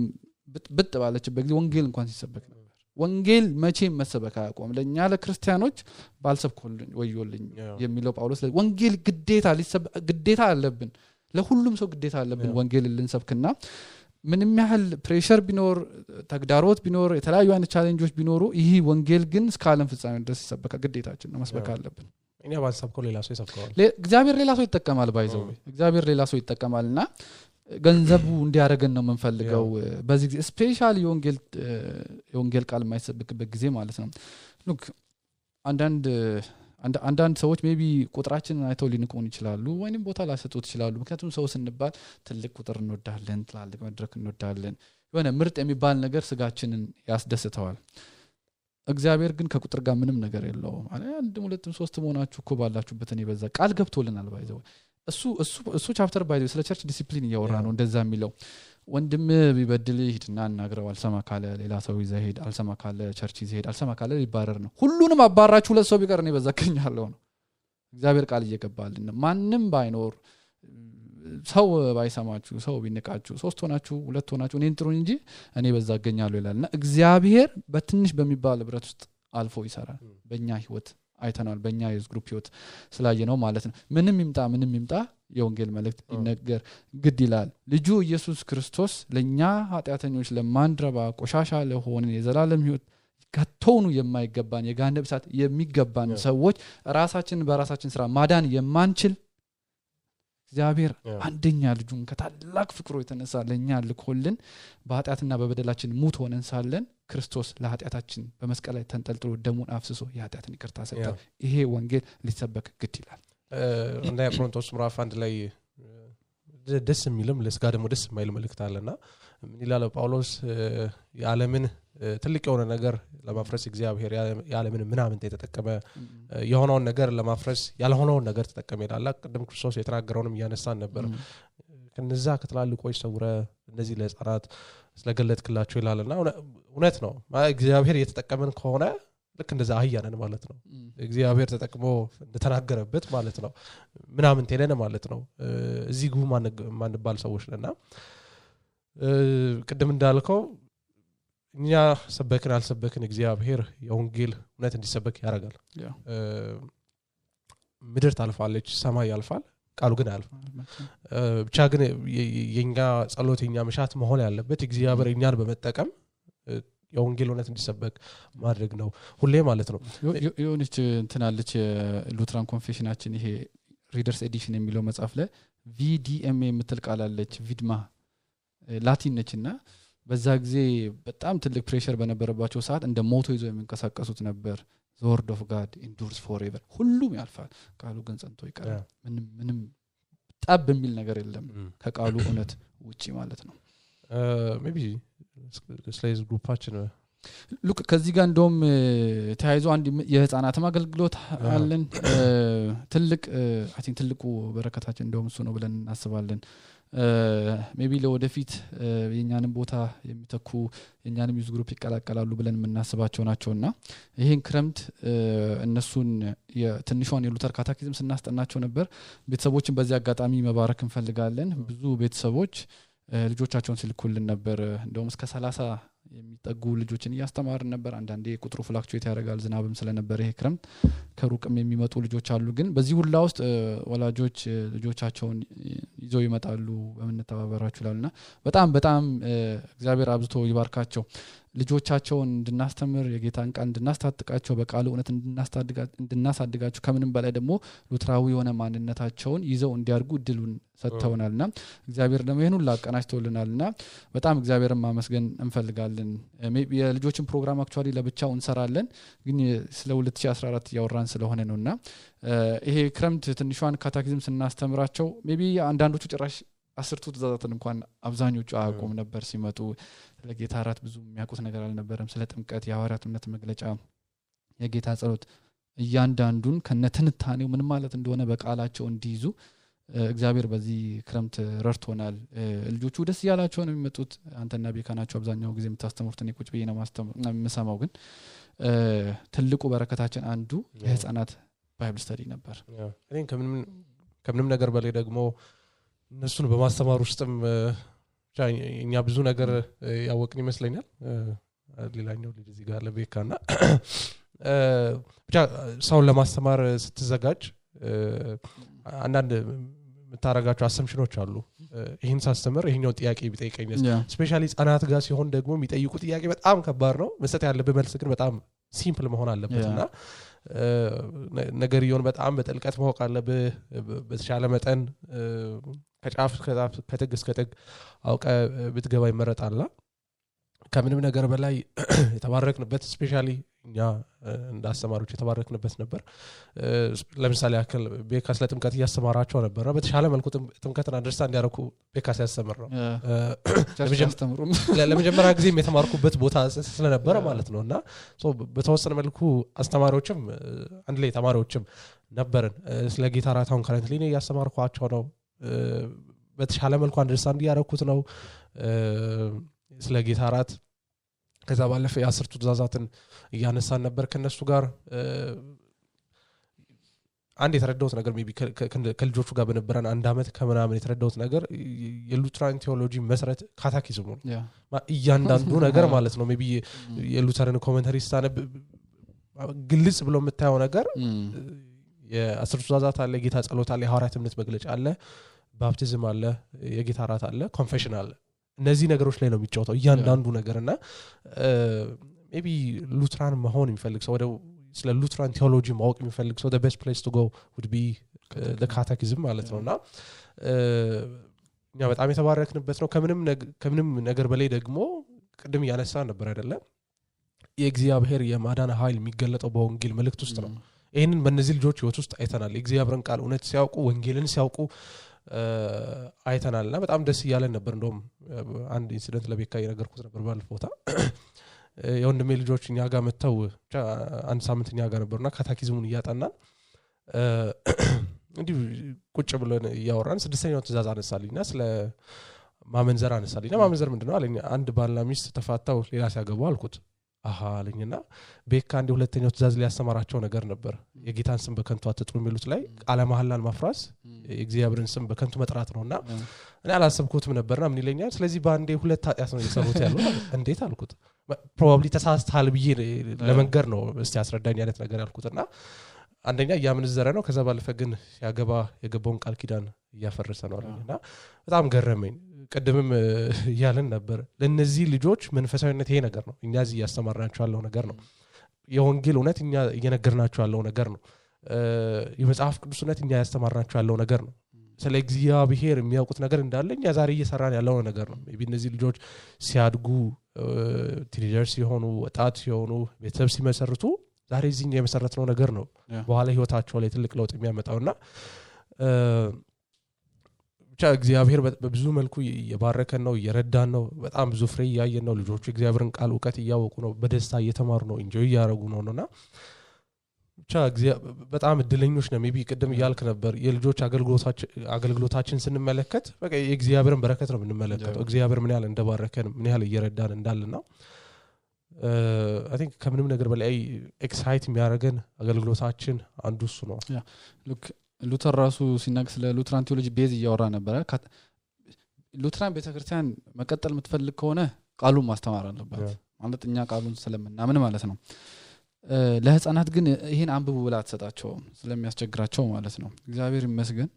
ብጥ ባለችበት ጊዜ ወንጌል እንኳን ሲሰበክ ነበር ወንጌል መቼም መሰበክ አያቆም ለኛ ለክርስቲያኖች ባልሰብኩልኝ ወዮልኝ የሚለው ጳውሎስ ወንጌል ግዴታ አለብን ለሁሉም ሰው ግዴታ አለብን ወንጌል ልንሰብክና ምንም ያህል ፕሬሸር ቢኖር ተግዳሮት ቢኖር የተለያዩ አይነት ቻሌንጆች ቢኖሩ ይሄ ወንጌል ግን እስከ ዓለም ፍጻሜ ድረስ ይሰበካ ግዴታችን ነው መስበክ አለብን እኛ ባንሰብከው ሌላ ሰው ይሰብከዋል እግዚአብሔር ሌላ ሰው ይተከማል ባይዘው እግዚአብሔር ሌላ ሰው ይተከማልና ገንዘቡ እንዲያረገን ነው የምንፈልገው በዚህ ጊዜ ስፔሻሊ የወንጌል ቃል የማይሰብክበት ጊዜ ማለት ነው ሉክ አንዳንድ ሰዎች ሜቢ ቁጥራችንን አይተው ሊንቁን ይችላሉ ወይንም ቦታ ላሰጡት ይችላሉ ምክንያቱም ሰው ስንባል ትልቅ ቁጥር እንወዳለን ትላልቅ መድረክ እንወዳለን የሆነ ምርጥ የሚባል ነገር ስጋችንን ያስደስተዋል እግዚአብሔር ግን ከቁጥር ጋር ምንም ነገር የለውም ማለት አንድ ሁለትም ሶስት ሆናችሁ እኮ ባላችሁበት እኔ በዛ ቃል ገብቶልናል ባይዘው እሱ ቻፕተር ባይ ስለ ቸርች ዲሲፕሊን ያወራ ነው እንደዛ የሚለው ወንድም ቢበድል ሂድና አናግረው አልሰማ ካለ ሌላ ሰው ይዘህ ሄድ አልሰማ ካለ ቸርች ይዘህ ሄድ አልሰማ ካለ ሊባረር ነው ሁሉንም አባራችሁ ሁለት ሰው ቢቀር ነው በዛከኛለሁ ነው እግዚአብሔር ቃል እየገባልን ማንንም ባይኖር ሰው ባይሰማችሁ ሰው ቢንቃችሁ ሶስት ሆናችሁ ሁለት ሆናችሁ እኔን ጥሩኝ እንጂ እኔ በዛገኛለሁ ይላልና እግዚአብሔር በትንሽ በሚባል ህብረት ውስጥ አልፎ ይሰራል በእኛ ህይወት አይተናል በእኛ የዝ ግሩፕ ህይወት ስላየነው ማለት ነው ምንም ይምጣ የወንጌል መልእክት ይነገር ግድ ይላል ልጁ ኢየሱስ ክርስቶስ ለኛ ኃጢአተኞች ለማንድረባ ቆሻሻ ለሆነ የዘላለም ህይወት ከቶኑ የማይገባን የገሃነም እሳት የሚገባን ሰዎች ራሳችንን በራሳችን ስራ ማዳን የማንችል እግዚአብሔር አንደኛ ልጁን ከታላቅ ፍቅሩ የተነሳ ለኛ ልኮልን በኃጢአትና በበደላችን ሙት ሆነን ሳለን ክርስቶስ ለኃጢአታችን በመስቀል ላይ ተንጠልጥሎ ደሙን አፍስሶ የኃጢአትን ይቅርታ ሰጠ ይሄ ወንጌል ሊሰበክ ግድ ይላል እንደ ቆሮንቶስ ምዕራፍ 1 ላይ ደስ የሚልም ለስጋ ደግሞ ደስ የማይል መልእክት አለና ምን ይላል ጳውሎስ የዓለምን ትልቅ የሆነ ነገር ለማፍረስ እግዚአብሔር የዓለምን ምናምን ተጠቀመ የሆነውን ነገር ለማፍረስ ያልሆነውን ነገር ተጠቀመ ይላል ቅድም ክርስቶስ የተናገረውንም ያነሳን ነበር ከነዛ ከተላልቆች ሰውረ እንደዚህ ለጻራት ስለገለጥክላቸው ይላልና እውነት ነው እግዚአብሔር የተጠቀመን ከሆነ ልክ እንደዛ አህያነን ማለት ነው እግዚአብሔር ተጠቅሞ እንደተናገረበት ማለት ነው ምናምን ተለነ ማለት ነው እዚህ ጉ ማንባል ሰዎች ነና ቅድም እንዳልከው እኛ ሰበክን አልሰበክን እግዚአብሔር የወንጌል እውነት እንዲሰበክ ያደርጋል ምድር ታልፋለች ሰማይ ያልፋል ቃሉ ግን አልፋ ብቻ ግን የኛ ጸሎት የኛ መሻት መሆን ያለበት እግዚአብሔር እኛን በመጠቀም የወንጌል እውነት እንዲሰበክ ማድረግ ነው ሁሌ ማለት ነው የሆነች እንትናለች ሉትራን ኮንፌሽናችን ይሄ ሪደርስ ኤዲሽን የሚለው መጽሐፍ ላይ VDMA የምትል ቃል አለች ቪድማ ላቲን ነችና በዛ ጊዜ በጣም ትልቅ ፕሬሸር በነበረባቸው ሰዓት እንደ ሞቶ ይዘው የሚንቀሳቀሱት ነበር the word of God endures forever ሁሉም ያልፋል ቃሉ ግን ጸንቶ ይቀራል ምንም ጠብ የሚል ነገር የለም ከቃሉ እውነት ውጪ ማለት ነው ሜቢ ስሌዝ ግሩፓችን ሉክ ከዚህ ጋር እንደውም ተያይዞ አንድ የህፃናት አገልግሎት አለን ትልቅ አይ ቲንክ ትልቁ በረከታችን እንደውም እሱ ነው ብለን እናስባለን ሜቢ ለወደፊት የኛንም ቦታ የሚተኩ የኛንም ዩዝ ግሩፕ ይቀላቀላሉ ብለን እናስባቸው ናቸውና ይሄን ክረምት እነሱን የትንሿን የሉተር ካታኪዝም ስናስጠናቸው ነበር ቤተሰቦችን በዚህ አጋጣሚ መባረክ እንፈልጋለን ብዙ ቤተሰቦች ልጆቻቸውን ሲልኩልን ነበር እንደውም እስከ 30 የሚጠጉ ልጆችን ያስተማርን ነበር አንዳንዴ ቁጥሩ ፍላክቹዌት ያደርጋል ዝናብም ስለነበር ይሄ ክረምት ከሩቅም የሚመጡ ልጆች አሉ ግን በዚህ ሁላ ውስጥ ወላጆች ልጆቻቸውን ይዘው ይመጣሉ በመነተባበራችሁ ላልና በጣም እግዚአብሔር አብዝቶ ይባርካቸው ልጆቻቸውን እንድናስተምር የጌታን ቃል እንድናስታጥቃቸው በቃሉ እውነት እንድናሳድጋቸው ከምንም በላይ ደግሞ ሉትራዊ የሆነ ማንነታቸውን ይዘው እንዲያርጉ እድሉን ሰጥተውናልና እግዚአብሔር ደግሞ ይሄን ሁሉ አቀናጅቶልናልና በጣም እግዚአብሔርን ማመስገን እንፈልጋለን የልጆችን ፕሮግራም አክቹአሊ ለብቻው እንሰራለን ግን ስለ 2014 ያወራን ስለሆነ ነውና ይሄ ክረምት ትንሿን ካታኪዝም ስናስተምራቸው ሜቢ አንዳንዶቹ ጭራሽ 10 ትእዛዛትን እንኳን አብዛኞቹ አያውቁም ነበር ሲመጡ ለጌታ ራት ብዙ የሚያውቁት ነገር አልነበረም ስለ ጥምቀት የሐዋርያት እምነት መግለጫ የጌታ ጸሎት እያንዳንዱን ከነትንታኔው ምን ማለት እንደሆነ በቃላቸው እንዲይዙ እግዚአብሔር በዚህ ክረምት ረድቶናል ልጆቹ ደስ ያላቸው ነው የሚመጡት አንተና ቤካናቸው አብዛኛው ጊዜ የምታስተምሩት እኔ ቁጭ ብዬ ነው የምሰማው ግን ትልቁ በረከታችን አንዱ የህፃናት ባይብል ስተዲ ነበር እኔ ከምንም ነገር በላይ ደግሞ እነሱን በማስተማር ውስጥም እኛ ብዙ ነገር ያወቅን ይመስለኛል ሌላኛው ልጅ እዚህ ጋር ለቤካና ብቻ ሰውን ለማስተማር ስትዘጋጅ አንዳንድ የምታረጋቸው አሰምሽኖች አሉ ይሄን ሳስተምር ይሄኛው ጥያቄ ቢጠይቀኝስ ስፔሻሊ ህፃናት ጋር ሲሆን ደግሞ የሚጠይቁ ጥያቄ በጣም ከባድ ነው መስጠት ያለበት መልስ ግን በጣም ሲምፕል መሆን አለበትና ነገርየውን በጣም በጥልቀት ማወቅ አለበት በተሻለ መጠን ከጫፍ ከጥግ እስከ ጥግ አውቀ ብትገባ ይመረጣልና ከምንም ነገር በላይ የተባረክንበት ስፔሻሊ እኛ እንዳስተማሪዎች የተባረክንበት ነበር ለምሳሌ ያክል ቤካስ ለጥምቀት ያስተማራቸው ነበር በተሻለ መልኩ ጥምቀትን አንደርስታንድ ያደርኩ ቤካስ ያስተምር ነው ለመጀመሪያ ጊዜ የተማርኩበት ቦታ ስለነበረ ማለት ነውና በተወሰነ መልኩ አስተማሪዎችም አንድ ላይ ተማሪዎችም ነበርን ስለ ጌታ ራታውን ከረንትሊ ነው ያስተማርኳቸው ነው በተሻለ መልኩ አንደርስታንድ ያደረኩት ነው ስለ ጌታ ራት ከዛ ባለፈ የ10ቱ ትእዛዛትን እያነሳን ነበር ከነሱ ጋር አንድ የተረዳሁት ነገር ሜቢ ከልጆቹ ጋር በነበረን አንድ አመት ከምናምን የተረዳሁት ነገር የሉትራን ቴዎሎጂ መሰረት ካታኪዝሙ ነው እያንዳንዱ ነገር ማለት ነው ሜቢ የሉተርን ኮሜንታሪ ስታነብ ግልጽ ብሎ የምታየው ነገር የ10ቱ ትእዛዛት አለ ጌታ ጸሎት አለ የሐዋርያት እምነት መግለጫ አለ ባፕቲዝም አለ የጌታ ራት አለ ኮንፌሽን አለ እነዚህ ነገሮች ላይ ነው የሚጫወተው እያንዳንዱ ነገርና ሜቢ ሉትራን መሆን የሚፈልግ ሰው ወደ ስለ ሉትራን ቴዎሎጂ ማወቅ የሚፈልግ ሰው the best place to go would be the catechism ማለት ነውና እኛ በጣም የተባረክንበት ነው ከምንም ነገር በላይ ደግሞ ቅድም ያነሳ ነበር አይደለ የእግዚአብሔር የማዳን ኃይል የሚገለጠው በወንጌል መልእክት ውስጥ ነው ይሄንን በእነዚህ ልጆች ህይወት ውስጥ አይተናል የእግዚአብሔርን ቃል እውነት ሲያውቁ ወንጌልን ሲያውቁ አይተናልና በጣም ደስ ይያለን ነበር እንደውም አንድ ኢንሲደንት ለቤካ የነገርኩት ነበር ባለፈውታ የወንድሜ ልጆች እኛ ጋር መተው አንድ ሳምንት እኛ ጋር ነበርና ካታኪዝሙን እያጠናን እንዲሁ ቁጭ ብለን ያወራን ስድስተኛው ትእዛዝ አነሳልኝና ስለ ማመንዘር አነሳልኝና ማመንዘር ምንድነው አለኝ አንድ ባልና ሚስት ተፋታው ሌላ ሲያገቡ አልኩት አለኝና ቤካ አንድ ሁለተኛው ትእዛዝ ሊያስተማራቸው ነገር ነበር የጌታን ስም በከንቱ አትጥሩ የሚሉት ላይ ቃለ መሐላን ማፍራስ የእግዚአብሔርን ስም በከንቱ መጥራት ነውና እኔ አላሰብኩትም ነበርና ምን ይለኛል ስለዚህ ባንዴ ሁለት ኃጢያት ነው የሰሩት ያለው እንዴት አልኩት ፕሮባብሊ ተሳስተሃል ብዬ ለመንገር ነው እስቲ አስረዳኝ አይነት ነገር ያልኩትና አንደኛ ያምንዘረ ነው ከዛ ባለፈ ግን የገባውን ቃል ኪዳን ያፈረሰ ነው አለኝና በጣም ገረመኝ ቀደምም ያለን ነበር ለነዚህ ልጆች መንፈሳዊነት ይሄ ነገር ነው እኛ እዚህ ያስተማርናቸው ያለው ነገር ነው የወንጌል እውነት እኛ እየነገርናቸው ያለው ነገር ነው የመጽሐፍ ቅዱስ እውነት እኛ ያስተማርናቸው ያለው ነገር ነው ስለ እግዚአብሔር የሚያውቁት ነገር እንዳለ እኛ ዛሬ እየሰራን ያለው ነገር ነው ሜቢ እነዚህ ልጆች ሲያድጉ ቲኔጀርስ ሲሆኑ ወጣት ሲሆኑ ቤተሰብ ሲመሰርቱ ዛሬ እዚህ የመሰረትነው ነገር ነው በኋላ ህይወታቸው ላይ ትልቅ ለውጥ የሚያመጣውና ብቻ እግዚአብሔር በብዙ መልኩ እየባረከን ነው እየረዳን ነው በጣም ብዙ ፍሬ ያያየን ነው ልጆቹ እግዚአብሔርን ቃል ዕውቀት ያወቁ ነው በደስታ እየተማሩ ነው ኢንጆይ ያደርጉ ነውና ብቻ በጣም እድለኞች ነው ሜቢ ቀደም ይያልክ ነበር የልጆች አገልግሎታችን ስንመለከት በቃ የእግዚአብሔርን በረከት ነው የምንመለከተው እግዚአብሔር ምን ያህል እንደባረከን ምን ያህል እየረዳን እንዳለና I think ከምንም ነገር በላይ ኤክሳይት የሚያደርገን አገልግሎታችን አንዱ እሱ ነው ሉክ ሉተር ራሱ ሲናገር ስለ ሉትራን ቴዎሎጂ ቤዝ እያወራ ነበር ሉትራን ቤተክርስቲያን መቀጠል የምትፈልግ ከሆነ ቃሉን ማስተማር አለበት ማለት እኛ ቃሉን ስለምናምን ማለት ነው ለህፃናት ግን ይሄን አንብቡ ብላ ተሰጣቸው ስለሚያስቸግራቸው ማለት ነው እግዚአብሔር ይመስገን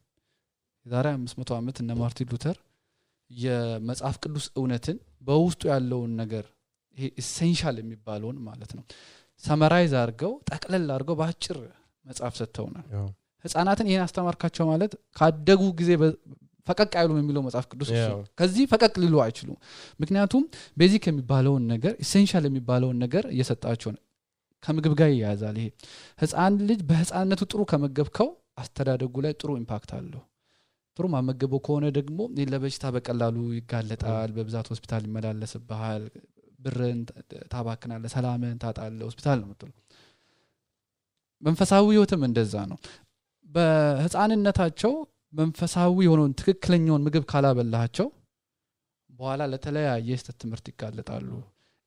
የዛሬ 500 ዓመት እነ ማርቲን ሉተር የመጽሐፍ ቅዱስ እውነትን በውስጡ ያለውን ነገር ይሄ ኢሴንሻል የሚባለውን ማለት ነው ሰመራይዝ አድርገው ጠቅለል አድርገው ባጭር መጽሐፍ ሰጥተውናል ህፃናትን ይሄን አስተማርካቸው ማለት ካደጉ ጊዜ ፈቀቅ አይሉም የሚለው መጽሐፍ ቅዱስ ከዚህ ፈቀቅ ሊሉ አይችሉም ምክንያቱም ቤዚክ የሚባለውን ነገር ኢሴንሻል የሚባለውን ነገር እየሰጣቸው ከምግብ ጋር ያያዛል ይሄ ህፃን ልጅ በህፃንነቱ ጥሩ ከመገብከው አስተዳደጉ ላይ ጥሩ ኢምፓክት አለው ጥሩ ማመገበው ከሆነ ደግሞ ለበሽታ በቀላሉ ይጋለጣል በብዛት ሆስፒታል ይመላለስብሃል ብርን ታባክናለህ ሰላምን ታጣለህ ሆስፒታል ነው የምትለው መንፈሳዊ ህይወትም እንደዛ ነው በህፃንነታቸው መንፈሳዊ የሆነውን ትክክለኛውን ምግብ ካላበላቸው በኋላ ለተለያየ የስተት ትምህርት ይጋለጣሉ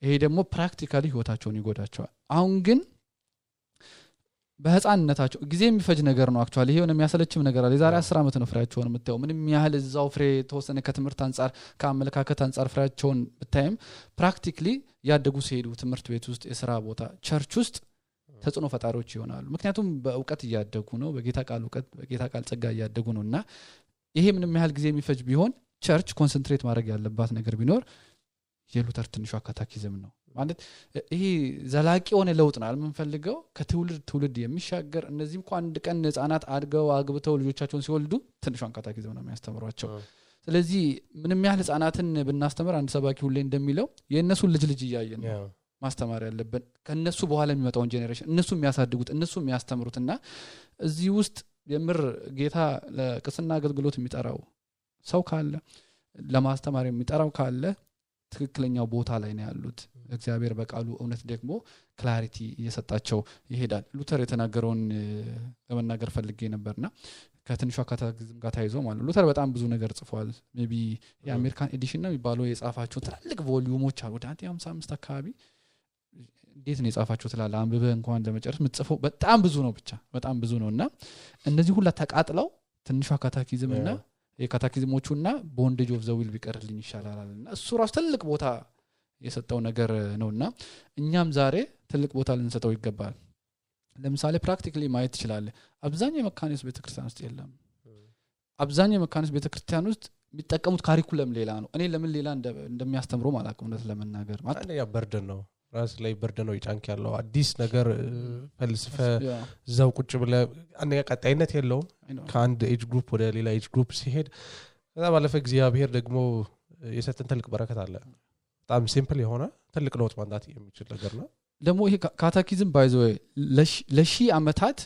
ይሄ ደግሞ ፕራክቲካሊ ህይወታቸውን ይጎዳቸዋል አሁን ግን በህፃንነታቸው ጊዜ የሚፈጅ ነገር ነው አክቹአሊ ይሄ የሚያሰለችም ነገር አለ የዛሬ 10 ዓመት ነው ፍሬያቸውን የምታየው ምንም ያህል እዛው ፍሬ ተወሰነ ከትምህርት አንፃር ከአመለካከት አንፃር ፍሬያቸውን ብታይም ፕራክቲካሊ ያደጉ ሲሄዱ ትምህርት ቤት ውስጥ የሥራ ቦታ ቸርች ውስጥ ተጽኖ ፈጣሪዎች ይሆናሉ ምክንያቱም በእውቀት ያደጉ ነው በጌታ ቃል ዕውቀት በጌታ ቃል ጸጋ ያደጉ ነውና ይሄ ምንም ያህል ጊዜ የሚፈጅ ቢሆን ቸርች ኮንሰንትሬት ማድረግ ያለባት ነገር ቢኖር የሉተር ትንሿ ካታኪዝም ነው ማለት ይሄ ዘላቂ ሆነ ለውጥ ነው አልምንፈልገው ከትውልድ ትውልድ የሚሻገር እነዚህም እንኳን አንድ ቀን ህፃናት አድገው አግብተው ልጆቻቸውን ሲወልዱ ትንሿን ካታኪዝም ነው የሚያስተምሯቸው ስለዚህ ምንም ያህል ህፃናትን ብናስተምር አንድ ሰባኪ ሁሌ እንደሚለው የነሱ ልጅ እያየን ማስተማር ያለበት ከነሱ በኋላ የሚመጣውን ጄኔሬሽን እነሱ የሚያሳድጉት እነሱ የሚያስተምሩትና እዚህ ውስጥ የምር ጌታ ለቅስና አገልግሎት የሚጠራው ሰው ካለ ለማስተማር የሚጠራው ካለ ትክክለኛው ቦታ ላይ ነው ያሉት እግዚአብሔር በቃሉ እውነት ደግሞ ክላሪቲ እየሰጣቸው ይሄዳል ሉተር የተናገረውን ለመናገር ፈልጌ ነበርና ከትንሿ ካታኪዝም ጋር ታይዞ ማለት ሉተር በጣም ብዙ ነገር ጽፏል ሜቢ የአሜሪካን ኤዲሽን ነው የሚባለው የጻፋቸው ትላልቅ ቮልዩሞች አሉ ወደ 155 አካባቢ እንዴት ነው የጻፋቸው ትላል አንብበህ እንኳን ለመጨረስ ምትጽፈው በጣም ብዙ ነው ብቻ በጣም ብዙ ነውና እነዚህ ሁሉ ተቃጥለው ትንሿ ካታኪዝምና የካታኪዝሞቹና ቦንዴጅ ኦፍ ዘ ዊል ቢቀርልኝ ይሻላልና እሱ ራስ ትልቅ ቦታ የሰጠው ነገር ነውና እኛም ዛሬ ትልቅ ቦታ ልንሰጠው ይገባል ለምሳሌ ፕራክቲካሊ ማየት ይችላል አብዛኛው የመካኒስ ቤተክርስቲያን ውስጥ የለም አብዛኛው የመካኒስ ቤተክርስቲያን ውስጥ የሚጠቀሙት ካሪኩለም ሌላ ነው እኔ ለምን ሌላ እንደሚያስተምሩ ማለት ነው ለመናገር ማለት ያ በርደን ነው ራስ ላይ በርደን ነው ይጫንክ ያለው አዲስ ነገር ፈልስፈ ዘው ቁጭ ብለ አንያ ቀጣይነት የለውም ከአንድ ኤጅ ግሩፕ ወደ ሌላ ኤጅ ግሩፕ ሲሄድ ከዛ ባለፈ እግዚአብሔር ደግሞ የሰጠን ትልቅ በረከት አለ በጣም ሲምፕል የሆነ ትልቅ ለውጥ ማንዳት የሚችል ነገር ነው ደግሞ ይሄ ካታኪዝም ባይዞ ለሺ አመታት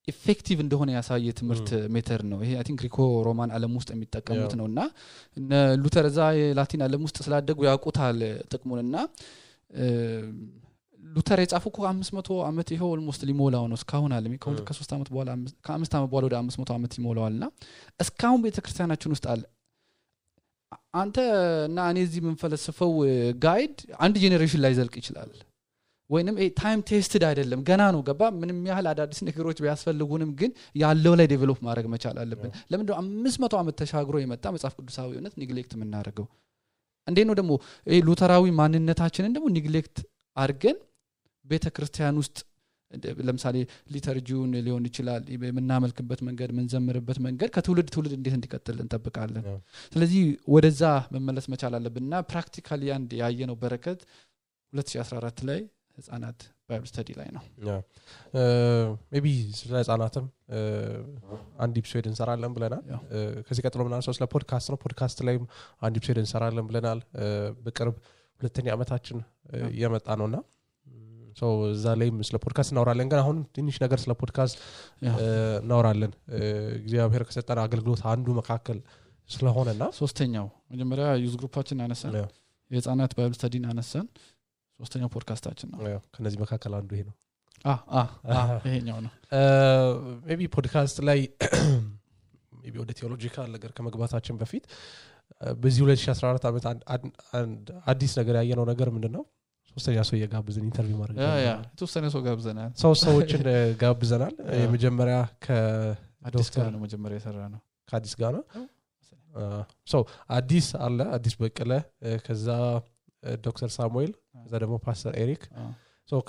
ኢፌክቲቭ እንደሆነ ያሳየ ትምህርት ሜተድ ነው ይሄ አይ ቲንክ ግሪኮ ሮማን ዓለም ውስጥ የሚጠቀሙት ነውና ሉተር ዛ የላቲን ዓለም ውስጥ ስላደጉ ያውቁታል ጥቅሙንና ሉተር የጻፈው ከ500 አመት ይሄው ኦልሞስት ሊሞላው ነው እስካሁን አለ ከ3 አመት በኋላ ከ5 አመት በኋላ ወደ 500 አመት ይሞላዋልና እስካሁን ቤተክርስቲያናችን ውስጥ አለ አንተ እና እኔ እዚህ ምንፈልስፈው ጋይድ አንድ ጄኔሬሽን ላይ ዘልቅ ይችላል ወይንም ታይም ቴስትድ አይደለም ገና ነው ገባ ምንም ያህል አዳዲስ ነገሮች ቢያስፈልጉንም ግን ያለው ላይ ዴቨሎፕ ማድረግ መቻል አለብን ለምን ነው 500 አመት ተሻግሮ የመጣ መጽሐፍ ቅዱሳዊ እውነት ኔግሌክት የምናደርገው እንዴ ነው ደግሞ ሉተራዊ ማንነታችንን ደግሞ ኔግሌክት አድርገን ቤተክርስቲያን ውስጥ ለምሳሌ ሊተርጂውን ሊሆን ይችላል የምናመልክበት መንገድ ምንዘምርበት መንገድ ከትውልድ ትውልድ እንዴት እንዲቀጥል እንጠብቃለን ስለዚህ ወደዛ መመለስ መቻል አለብንና ፕራክቲካሊ አንድ ያየነው በረከት 2014 ላይ ህፃናት ባይብል ስተዲ ላይ ነው ሜቢ ስለ ህፃናትም አንድ ኤፒሶድ እንሰራለን ብለናል ከዚህ ቀጥሎ ምናምን ስለ ፖድካስት ነው ፖድካስት ላይም አንድ ኤፒሶድ እንሰራለን ብለናል በቅርብ ሁለተኛ አመታችን እየመጣ ነውና ሶ እዛ ላይም ስለ ፖድካስት እናወራለን ግን አሁን ትንሽ ነገር ስለ ፖድካስት እናወራለን እግዚአብሔር ከሰጠን አገልግሎት አንዱ መካከል ስለሆነና ሶስተኛው መጀመሪያ ዩዝ ግሩፓችን አነሳን የህፃናት ባይብል ስተዲን አነሳን ሶስተኛው ፖድካስታችን ነው ከነዚህ መካከል አንዱ ይሄ ነው ይሄኛው ነው ሜቢ ፖድካስት ላይ ሜቢ ወደ ቴዎሎጂካል ነገር ከመግባታችን በፊት በዚህ 2014 አመት አዲስ ነገር ያየነው ነገር ምንድነው ሶስተኛ ሰው የጋብዘን ኢንተርቪው ማድረግ ሶስተኛ ሰው ጋብዘናል ሰዎችን ጋብዘናል የመጀመሪያ ከአዲስ ጋር ነው መጀመሪያ የሰራ ነው ከአዲስ ጋር ነው ሶ አዲስ አለ አዲስ በቀለ ከዛ ዶክተር ሳሙኤል ከዛ ደግሞ ፓስተር ኤሪክ ሶ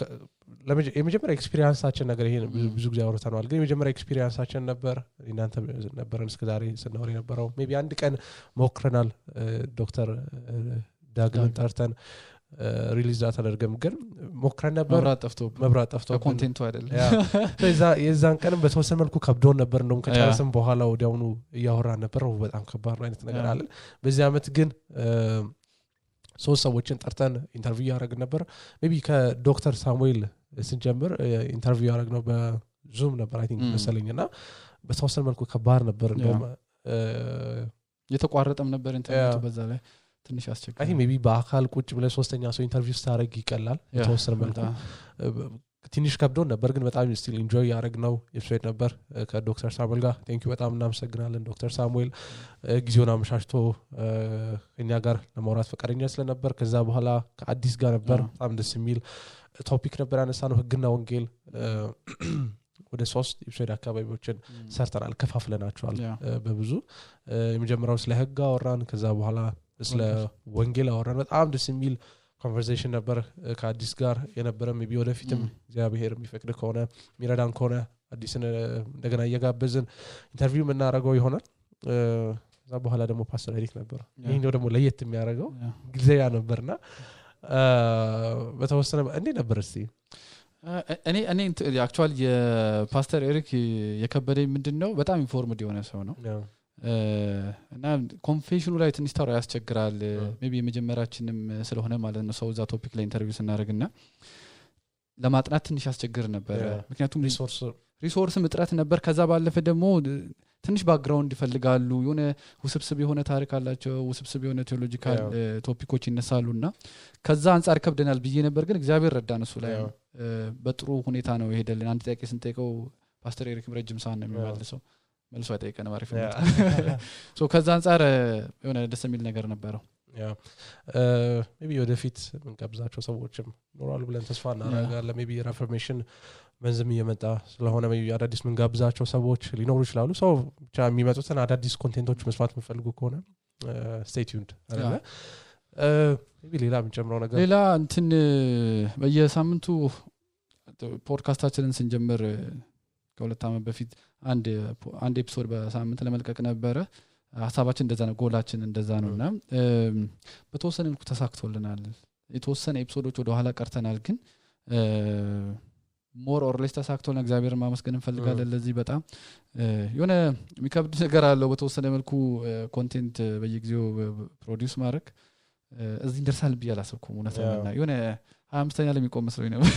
የመጀመሪያ ኤክስፒሪየንሳችን ነገር ይሄ ብዙ ጊዜ አውርተናል ግን የመጀመሪያ ኤክስፒሪየንሳችን ነበር እናንተ ነበረን እስከዛሬ ስናወራ የነበረው ሜቢ አንድ ቀን ሞክረናል ዶክተር ዳግም ጠርተን ሪሊዝ አደረገም ግን ሞክረን ነበር መብራት ጠፍቶ ኮንቴንቱ አይደለም የዛን ቀንም በተወሰነ መልኩ ከብዶን ነበር እንደውም ከጨረስን በኋላ ወዲያውኑ እያወራን ነበር በጣም ከባድ አይነት ነገር አለ በዚህ አመት ግን ሶስት ሰዎችን ጠርተን ኢንተርቪው ያደረግን ነበር ሜቢ ከዶክተር ሳሙኤል ስንጀምር ኢንተርቪው ያደረግነው በዙም ነበር አይ ቲንክ መሰለኝና በተወሰነ መልኩ ከባድ ነበር እንደውም የተቋረጠም ነበር ኢንተርኔቱ በዛ ላይ ትንሽ አስቸጋሪ አይ ሜቢ በአካል ቁጭ ብለ ሶስተኛ ሰው ኢንተርቪው ስታረግ ይቀላል የተወሰነ መልኩ ትንሽ ከብዶን ነበር ግን በጣም ስቲል ኢንጆይ ያደረግነው ኤፒሶድ ነበር ከዶክተር ሳሙኤል ጋር ቴንክ ዩ በጣም እናመሰግናለን ዶክተር ሳሙኤል ጊዜውን አመሻሽቶ እኛ ጋር ለማውራት ፈቃደኛ ስለነበር ከዛ በኋላ ከአዲስ ጋር ነበር በጣም ደስ የሚል ቶፒክ ነበር ያነሳነው ህግና ወንጌል ወደ 3 ኤፒሶድ አካባቢዎችን ሰርተናል ከፋፍለናቸዋል በብዙ የመጀመሪያው ስለ ህግ አወራን ከዛ በኋላ ስለ ወንጌል አወራን በጣም ደስ የሚል ኮንቨርሴሽን ነበር ከአዲስ ጋር የነበረ ሜቢ ወደፊትም እግዚአብሔር የሚፈቅድ ከሆነ ሚረዳን ከሆነ አዲስን እንደገና እየጋበዝን ኢንተርቪው እናደርገው ይሆናል ከዛ በኋላ ደግሞ ፓስተር ኤሪክ ነበር ይሄኛው ደግሞ ለየት የሚያደርገው ጊዜያ ነበርና በተወሰነ እንዴ ነበር እስቲ እኔ አክቹአሊ የፓስተር ኤሪክ የከበደኝ ምንድነው በጣም ኢንፎርምድ የሆነ ሰው ነው እና ኮንፌሽኑ ላይ ትንሽ ታራ ያስቸግራል ሜቢ የመጀመሪያችንም ስለሆነ ማለት ነው ሰውዛ ቶፒክ ላይ ኢንተርቪው ስናደርግና ለማጥናት ትንሽ ያስቸግር ነበር ምክንያቱም ሪሶርስ እጥረት ነበር ከዛ ባለፈ ደግሞ ትንሽ ባክግራውንድ ይፈልጋሉ የሆነ ውስብስብ የሆነ ታሪክ አላቸው ውስብስብ የሆነ ቴዎሎጂካል ቶፒኮች ይነሳሉና ከዛ አንፃር ከብደናል ብዬ ነበር ግን እግዚአብሔር ረዳን እሱ ላይ በጥሩ ሁኔታ ነው ይሄደልን አንድ ጥያቄ ስንጠይቀው ፓስተር ኤሪክም ረጅም ሰዓት ነው የሚመልሰው መልሶ አይጠይቀን ማሪፍ ነው ሶ ከዛ አንፃር የሆነ ደስ የሚል ነገር ነበረው ሜቢ ወደፊት ምን ጋብዛቸው ሰዎችም ኖራሉ ብለን ተስፋ እናደርጋለን ሜቢ ሪፎርሜሽን መንዝም እየመጣ ስለሆነ ሜቢ አዳዲስ ምን ጋብዛቸው ሰዎች ሊኖሩ ይችላሉ ሶ ብቻ የሚመጡትን አዳዲስ ኮንቴንቶች መስፋት የምፈልጉ ከሆነ stay tuned አይደለ ሜቢ ሌላ የምንጨምረው ነገር ሌላ እንትን በየሳምንቱ ፖድካስታችንን ስንጀምር ከሁለት ዓመት በፊት አንድ ኤፒሶድ በሳምንት ለመልቀቅ ነበረ ሐሳባችን እንደዛ ነው ጎላችን እንደዛ ነውና በተወሰነ መልኩ ተሳክቶልናል የተወሰነ ኤፒሶዶች ወደ ኋላ ቀርተናል ግን ሞር ኦር ሌስ ተሳክቶልና እግዚአብሔርን ማመስገን እንፈልጋለን ለዚህ በጣም የሆነ የሚከብድ ነገር አለው በተወሰነ መልኩ ኮንቴንት በየጊዜው ፕሮዲዩስ ማድረግ እዚህ እንደርሳል ቢያላሰብኩም እውነታና የሆነ 25ኛ ለሚቆም መስሎኝ ነበር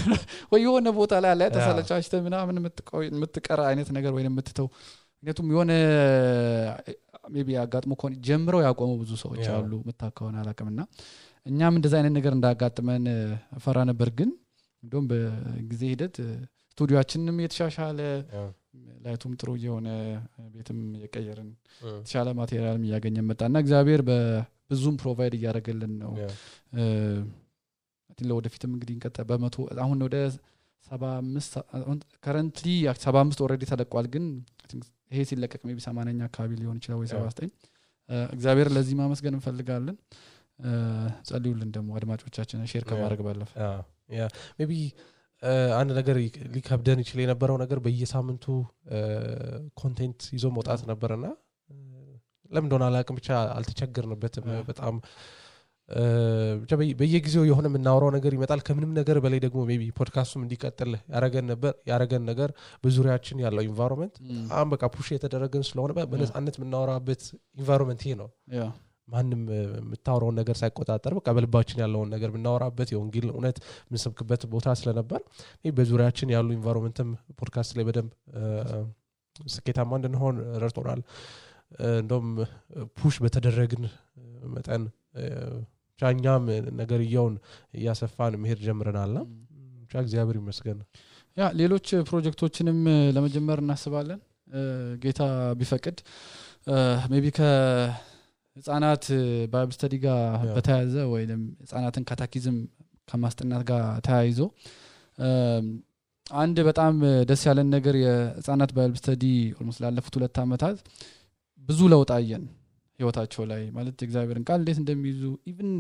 ወይ የሆነ ቦታ ላይ አለ ተሰለቻችተ ምናምን የምትቀራ አይነት ነገር ወይ የምትተው ምክንያቱም የሆነ ሜቢ አጋጥሞ ኮን ጀምረው ያቆሙ ብዙ ሰዎች አሉ መታከውና አላቀምና እኛም እንደዛ አይነት ነገር እንዳጋጥመን ፈራ ነበር ግን እንደውም በጊዜ ሂደት ስቱዲዮአችንንም የተሻሻለ ላይቱም ጥሩ የሆነ ቤትም የቀየርን ተሻለ ማቴሪያልም ያገኘን መጣና እግዚአብሔር በብዙም ፕሮቫይድ ያደርገልን ነው ለወደፊትም እንግዲህ እንቀጣ በመቶ አሁን ወደ 75 currently 75 already ተለቋል ግን ይሄ ሲለቀቅ ሜቢ 80ኛ አካባቢ ሊሆን ይችላል ወይ 79 እግዚአብሔር ለዚህ ማመስገን እንፈልጋለን ጸልዩልን ደግሞ አድማጮቻችን ሼር ከማድረግ ባለፈ ያ ሜቢ አንድ ነገር ሊከብደን ይችላል የነበረው ነገር በየሳምንቱ ኮንቴንት ይዞ መውጣት ነበርና ለምን እንደሆነ አላቅም ብቻ አልተቸገርንበትም በጣም በየጊዜው የሆነ የምናወራው ነገር ይመጣል ከምንም ነገር በላይ ደግሞ ሜቢ ፖድካስቱም እንዲቀጥል ያረገን ነገር በዙሪያችን ያለው ኢንቫይሮንመንት በቃ ፑሽ የተደረገን ስለሆነ በነፃነት የምናወራበት ኢንቫይሮንመንት ይሄ ነው ማንንም የምታወራው ነገር ሳይቆጣጠር በቃ በልባችን ያለውን ነገር የምናወራበት የወንጌል እውነት የምንሰብክበት ቦታ ስለነበር በዙሪያችን ያሉ ኢንቫይሮንመንትም ፖድካስት ላይ በደንብ ስኬታማ እንድንሆን ረድቶናል እንደውም ፑሽ በተደረግን መጠን ቻኛም ነገርየውን ያሰፋን መሄድ ጀምረናልና ቻ እግዚአብሔር ይመስገን ያ ሌሎች ፕሮጀክቶችንም ለመጀመር እናስባለን ጌታ ቢፈቅድ ሜቢ ከህፃናት ባይብል ስተዲ ጋር በተያያዘ ወይንም ህፃናትን ካታኪዝም ከማስጠናት ጋር ተያይዞ አንድ በጣም ደስ ያለን ነገር የህፃናት ባይብል ስተዲ ኦልሞስት ላለፉት 2 አመታት ብዙ ለውጥ አየን ህይወታቸው ላይ ማለት እግዚአብሔርን ቃል እንዴት እንደሚይዙ ኢቭን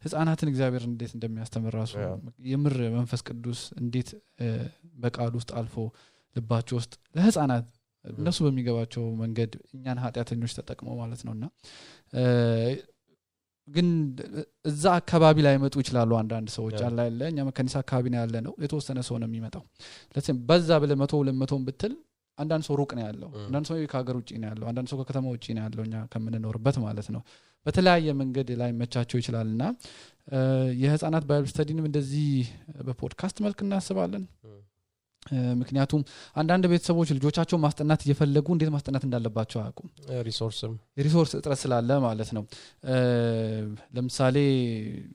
ህፃናትን እግዚአብሔር እንዴት እንደሚያስተምር ራሱ የምር መንፈስ ቅዱስ እንዴት በቃል ውስጥ አልፎ ልባቸው ውስጥ ለህፃናት እነሱ በሚገባቸው መንገድ እኛን ኃጢያተኞች ተጠቅመው ማለት ነውና ግን እዛ አካባቢ ላይ መጡ ይችላሉ አንዳንድ ሰዎች አላለ እኛ መከኒሳ አካባቢ ነው ያለ ነው የተወሰነ ሰው ነው የሚመጣው ለዚህ በዛ ብለ 100 200 ብትል አንዳንድ ሰው ሩቅ ነው ያለው አንዳንድ ሰው ከሀገር ውጪ ነው ያለው አንዳንድ ሰው ከከተማ ውጪ ነው ያለውኛ ከምንኖርበት ማለት ነው በተለያየ መንገድ ላይ መቻቸው ይችላልና የህፃናት ባይብል ስተዲንም እንደዚህ በፖድካስት መልክ እናስባለን ምክንያቱም አንዳንድ ቤተሰቦች ልጆቻቸው ማስጠናት እየፈለጉ እንዴት ማስጠናት እንዳለባቸው አያውቁም ሪሶርስ እጥረት ስላለ ማለት ነው ለምሳሌ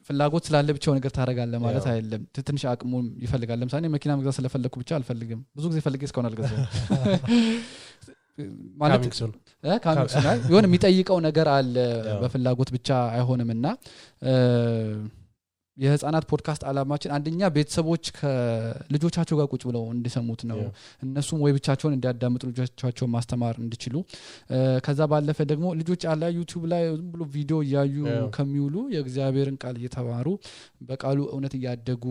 ፍላጎት ስላለ ብቻው ነገር ታረጋለ ማለት አይደለም ትንሽ አቅሙ ይፈልጋል ለምሳሌ መኪና መግዛት ስለፈለኩ ብቻ አልፈልግም ብዙ ጊዜ ፈልጌ እስካሁን አልገዛም ማለት ካሚክሱን የሆነ የሚጠይቀው ነገር አለ በፍላጎት ብቻ አይሆንምና የህፃናት ፖድካስት አላማችን አንደኛ ቤተሰቦች ከልጆቻቸው ጋር ቁጭ ብለው እንዲሰሙት ነው እነሱም ወይ ብቻቸውን እንዲያዳምጡ ልጆቻቸው ማስተማር እንዲችሉ ከዛ ባለፈ ደግሞ ልጆች አላ ዩቲዩብ ላይ ዝም ብሎ ቪዲዮ ያዩ ከሚውሉ የእግዚአብሔርን ቃል እየተማሩ በቃሉ እውነት ያደጉ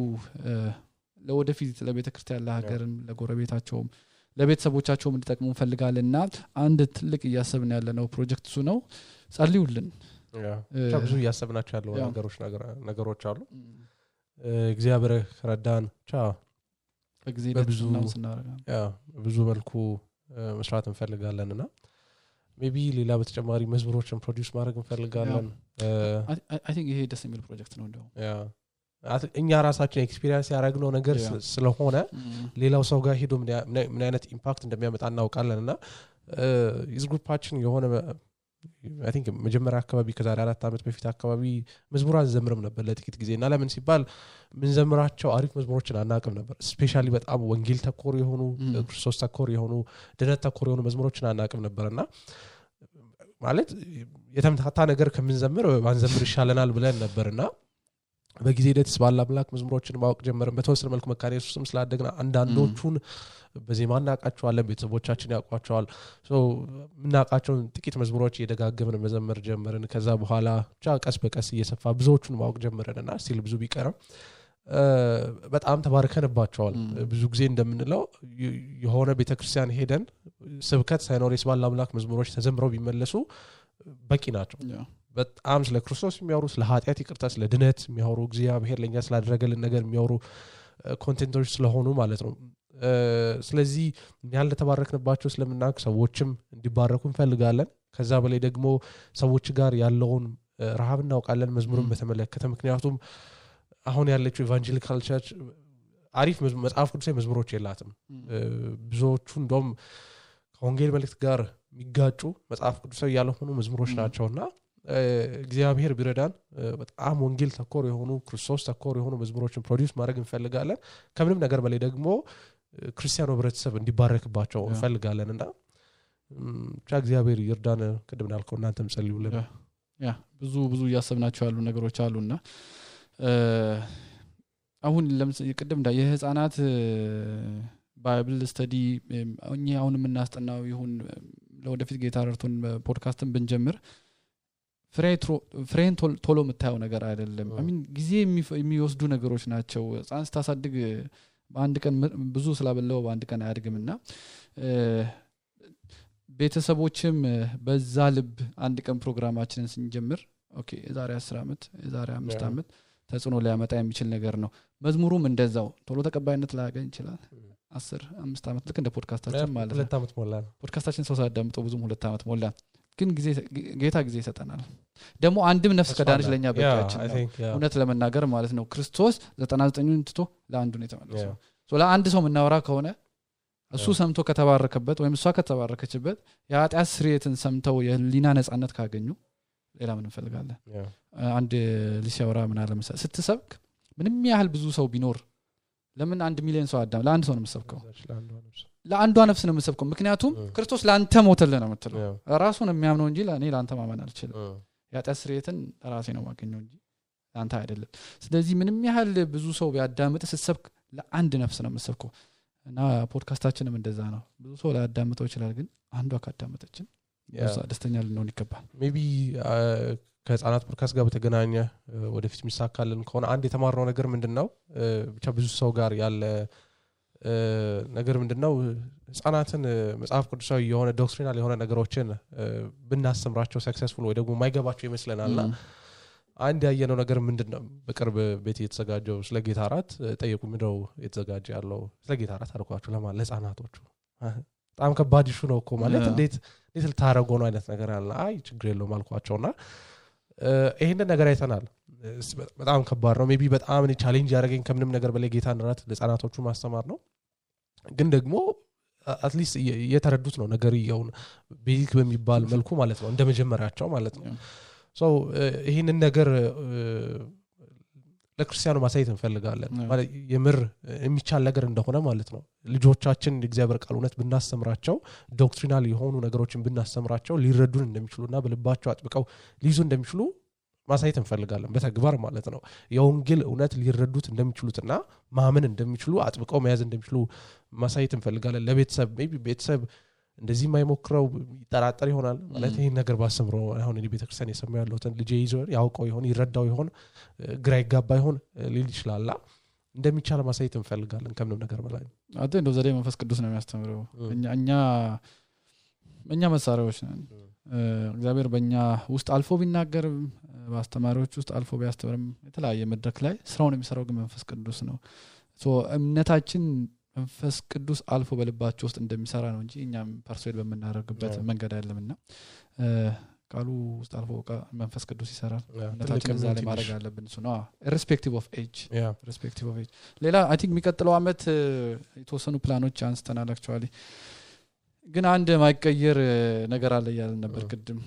ለወደፊት ለቤተክርስቲያን ለሀገርም ለጎረቤታቸውም ለቤተሰቦቻቸውም እንዲጠቅሙ እንፈልጋለንና አንድ ትልቅ ያሰብን ያለነው ፕሮጀክት እሱ ነው ጸልዩልን ብዙ ያሰብናቸው ያለው ነገሮች አሉ እግዚአብሔር ረዳን በብዙ መልኩ መስራት እንፈልጋለንና ሜቢ ሌላ በተጨማሪ መዝሙሮችን ፕሮዲዩስ ማድረግ እንፈልጋለን አይ ቲንክ ይሄ ደስ የሚል ፕሮጀክት ነው እንደው እኛ ራሳችን ኤክስፒሪየንስ ያደረግነው ነገር ስለሆነ ሌላው ሰው ጋር ሄዶ ምን አይነት ኢምፓክት እንደሚያመጣ እናውቃለንና ዩዝ ግሩፓችን የሆነ I think መጀመሪያ አካባቢ ከዛሬ 4 አመት በፊት አካባቢ መዝሙራን ዘምረም ነበር ለጥቂት ጊዜና ለምን ሲባል ምን ዘምራቸው አሪፍ መዝሙሮችን አናቅም ነበር ስፔሻሊ በጣም ወንጌል ተኮር የሆኑ ክርስቶስ ተኮር የሆኑ ድነት ተኮር የሆኑ መዝሙሮችን አናቅም ነበርና ማለት የተምታታ ነገር ከመንዘምር ባንዘምር ይሻለናል ብለን ነበርና በጊዜ ሂደት ባለ አምላክ መዝሙሮችን ማወቅ ጀመርን በተወሰነ መልኩ መካነ ኢየሱስም ስላደግና አንዳንዶቹን በዚህ ማናቃቸዋለን ቤተሰቦቻችን ያቋቸዋል ሶ ምናቃቸውን ጥቂት መዝሙሮች እየደጋገምን መዘመር ጀመርን ከዛ በኋላ ቀስ በቀስ እየሰፋ ብዙዎቹን ማወቅ ጀመረንና ሲል ብዙ ቢቀርም በጣም ተባርከንባቸዋል ብዙ ጊዜ እንደምንለው የሆነ ቤተክርስቲያን ሄደን ስብከት ሳይኖር የስባል አምላክ መዝሙሮች ተዘምረው ቢመለሱ በቂ ናቸው በጣም ስለ ክርስቶስ የሚያወሩ ስለ ኃጢአት ይቅርታ ስለ ድነት የሚያወሩ እግዚአብሔር ለኛ ስላደረገልን ነገር የሚያወሩ ኮንቴንቶች ስለሆኑ ማለት ነው ስለዚህ ያለ ተባረክንባቸው ስለምናውቅ ሰዎችም እንዲባረኩ እንፈልጋለን ከዛ በላይ ደግሞ ሰዎች ጋር ያለውን ረሃብ እናውቃለን መዝሙርን በተመለከተ ምክንያቱም አሁን ያለችው ኢቫንጀሊካል ቸርች አሪፍ መጽሐፍ ቅዱሳዊ መዝሙሮች የላትም ብዙዎቹ እንደውም ከወንጌል መልእክት ጋር የሚጋጩ መጽሐፍ ቅዱሳዊ ያልሆኑ መዝሙሮች ናቸውና እግዚአብሔር ቢረዳን በጣም ወንጌል ተኮር የሆኑ ክርስቶስ ተኮር የሆኑ መዝሙሮችን ፕሮዲዩስ ማድረግ እንፈልጋለን ከምንም ነገር በላይ ደግሞ ክርስቲያኖ ህብረተሰብ እንዲባረክባቸው እንፈልጋለንና እግዚአብሔር ይርዳን ቅድም እንዳልከው እናንተም ጸልዩልን ያ ብዙ ያሰብናቸው ያሉ ነገሮች አሉና አሁን ለምሳሌ ቅድም የህፃናት ባይብል ስተዲ አሁን የምናስጠናው ይሁን ለወደፊት ጌታ ረድቶን ፖድካስትን ብንጀምር ፍሬን ቶሎ መታየው ነገር አይደለም አሚን ጊዜ የሚወስዱ ነገሮች ናቸው ህፃን ስታሳድግ በአንድ ቀን ብዙ ስላበለው በአንድ ቀን አያድግምና ቤተሰቦችም በዛ ልብ አንድ ቀን ፕሮግራማችንን ስንጀምር ኦኬ የዛሬ 10 አመት የዛሬ 5 አመት ተጽኖ ሊያመጣ የሚችል ነገር ነው መዝሙሩም እንደዛው ቶሎ ተቀባይነት ላያገኝ ይችላል 5 አመት ልክ እንደ ፖድካስታችን ማለት ነው 2 አመት ሞላን ፖድካስታችን ሰው ሳዳምጠው ብዙም 2 አመት ሞላን ግን ጌታ ጊዜ ይሰጠናል ደግሞ አንድም ነፍስ ከዳንች ለኛ በቃችን እውነት ለመናገር ማለት ነው ክርስቶስ 99ን ትቶ ለአንዱ ነው የተመለሰው ሶ ለአንድ ሰው ምናወራ ከሆነ እሱ ሰምቶ ከተባረከበት ወይም እሷ ከተባረከችበት የኃጢአት ስርየትን ሰምተው የሊና ነጻነት ካገኙ ሌላ ምን እንፈልጋለን አንድ ሊሻወራ ምን አለ መሰለ ስትሰብክ ምንም ያህል ብዙ ሰው ቢኖር ለምን 1 ሚሊዮን ሰው አዳም ለአንድ ሰው ነው የምትሰብከው ለአንዷ ነፍስ ነው የምትሰብከው ምክንያቱም ክርስቶስ ላንተ ሞተልህ ነው የምትለው ራሱን የሚያምነው እንጂ ለኔ ላንተ ማመን አልችልም የኃጢአት ስርየትን ራሴ ነው ማገኘው እንጂ ላንተ አይደለም ስለዚህ ምንም ያህል ብዙ ሰው ቢያዳምጥ ስትሰብክ ለአንድ ነፍስ ነው የምትሰብከው እና ፖድካስታችንም እንደዛ ነው ብዙ ሰው ላዳምጠው ይችላል ግን አንዷ ካዳመጠችን ደስተኛ ልንሆን ይገባል ሜቢ ከህፃናት ፖድካስት ጋር በተገናኘ ወደፊት የሚሳካልን ከሆነ አንድ የተማርነው ነገር ምንድነው ብቻ ብዙ ሰው ጋር ያለ ነገር ምንድነው ህፃናትን መጽሐፍ ቅዱሳዊ የሆነ ዶክትሪናል የሆነ ነገሮችን ብናስተምራቸው ሰክሰስፉል ወይ ደግሞ ማይገባቸው ይመስለናልና አንድ ያየነው ነገር ምንድነው በቅርብ ቤት የተዘጋጀው ስለ ጌታ አራት ጠየቁ ምንድነው የተዘጋጀ ያለው ስለ ጌታ አራት አልኳቸው ለማለት ለህፃናቶቹ በጣም ከባድ ኢሹ ነው እኮ ማለት እንዴት ልታረጉ ነው አይነት ነገር አለ አይ ችግር የለውም አልኳቸውና ይሄንን ነገር አይተናል በጣም ከባድ ነው ሜቢ በጣም እኔ ቻሌንጅ ያደረገኝ ከምንም ነገር በላይ ጌታን ራት ለህፃናቶቹ ማስተማር ነው ግን ደግሞ አትሊስት የተረዱት ነው ነገር ይሁን ቤዚክ በሚባል መልኩ ማለት ነው እንደመጀመሪያቸው ማለት ነው ሶ ይሄንን ነገር ለክርስቲያኑ ማሳየት እንፈልጋለን ማለት የምር የሚቻል ነገር እንደሆነ ማለት ነው ልጆቻችን እግዚአብሔር ቃል እውነት ብናስተምራቸው ዶክትሪናል የሆኑ ነገሮችን ብናስተምራቸው ሊረዱን እንደሚችሉና በልባቸው አጥብቀው ሊይዙ እንደሚችሉ ማሳየት እንፈልጋለን በተግባር ማለት ነው የወንጌል እውነት ሊረዱት እንደሚችሉትና ማመን እንደሚችሉ አጥብቀው መያዝ እንደሚችሉ ማሳየት እንፈልጋለን ለቤተሰብ ሜቢ ቤተሰብ እንደዚህ ማይሞክረው ይጠራጠር ይሆናል ማለት ይሄን ነገር ባሰምሮ አሁን እኔ ቤተክርስቲያን የሰማው ያለውትን ልጄ ይዞ ያውቀው ይሆን ይረዳው ይሆን ግራ ይጋባ ይሆን ሊል ይችላል እንደሚቻል ማሳየት እንፈልጋለን ከምንም ነገር በላይ አጤ እንደው ዘዴ መንፈስ ቅዱስ ነው የሚያስተምረው እኛ መሳሪያዎች ነን እግዚአብሔር በእኛ ውስጥ አልፎ ቢናገር በአስተማሪዎች ውስጥ አልፎ ቢያስተምርም የተለያየ መድረክ ላይ ስራውን የሚሰራው ግን መንፈስ ቅዱስ ነው ሶ እምነታችን መንፈስ ቅዱስ አልፎ በልባቸው ውስጥ እንደሚሰራ ነው እንጂ እኛም ፐርሶይድ በመናረግበት መንገድ አይደለምና ቃሉ ውስጥ አልፎ መንፈስ ቅዱስ ይሰራል እምነታችን እዛ ላይ ማድረግ አለብን እሱ ነው irrespective of age ሌላ አይ ቲንክ የሚቀጥለው አመት የተወሰኑ ፕላኖች አንስተናል actually ግን አንድ ማይቀየር ነገር አለ ያለ ነበር ቅድም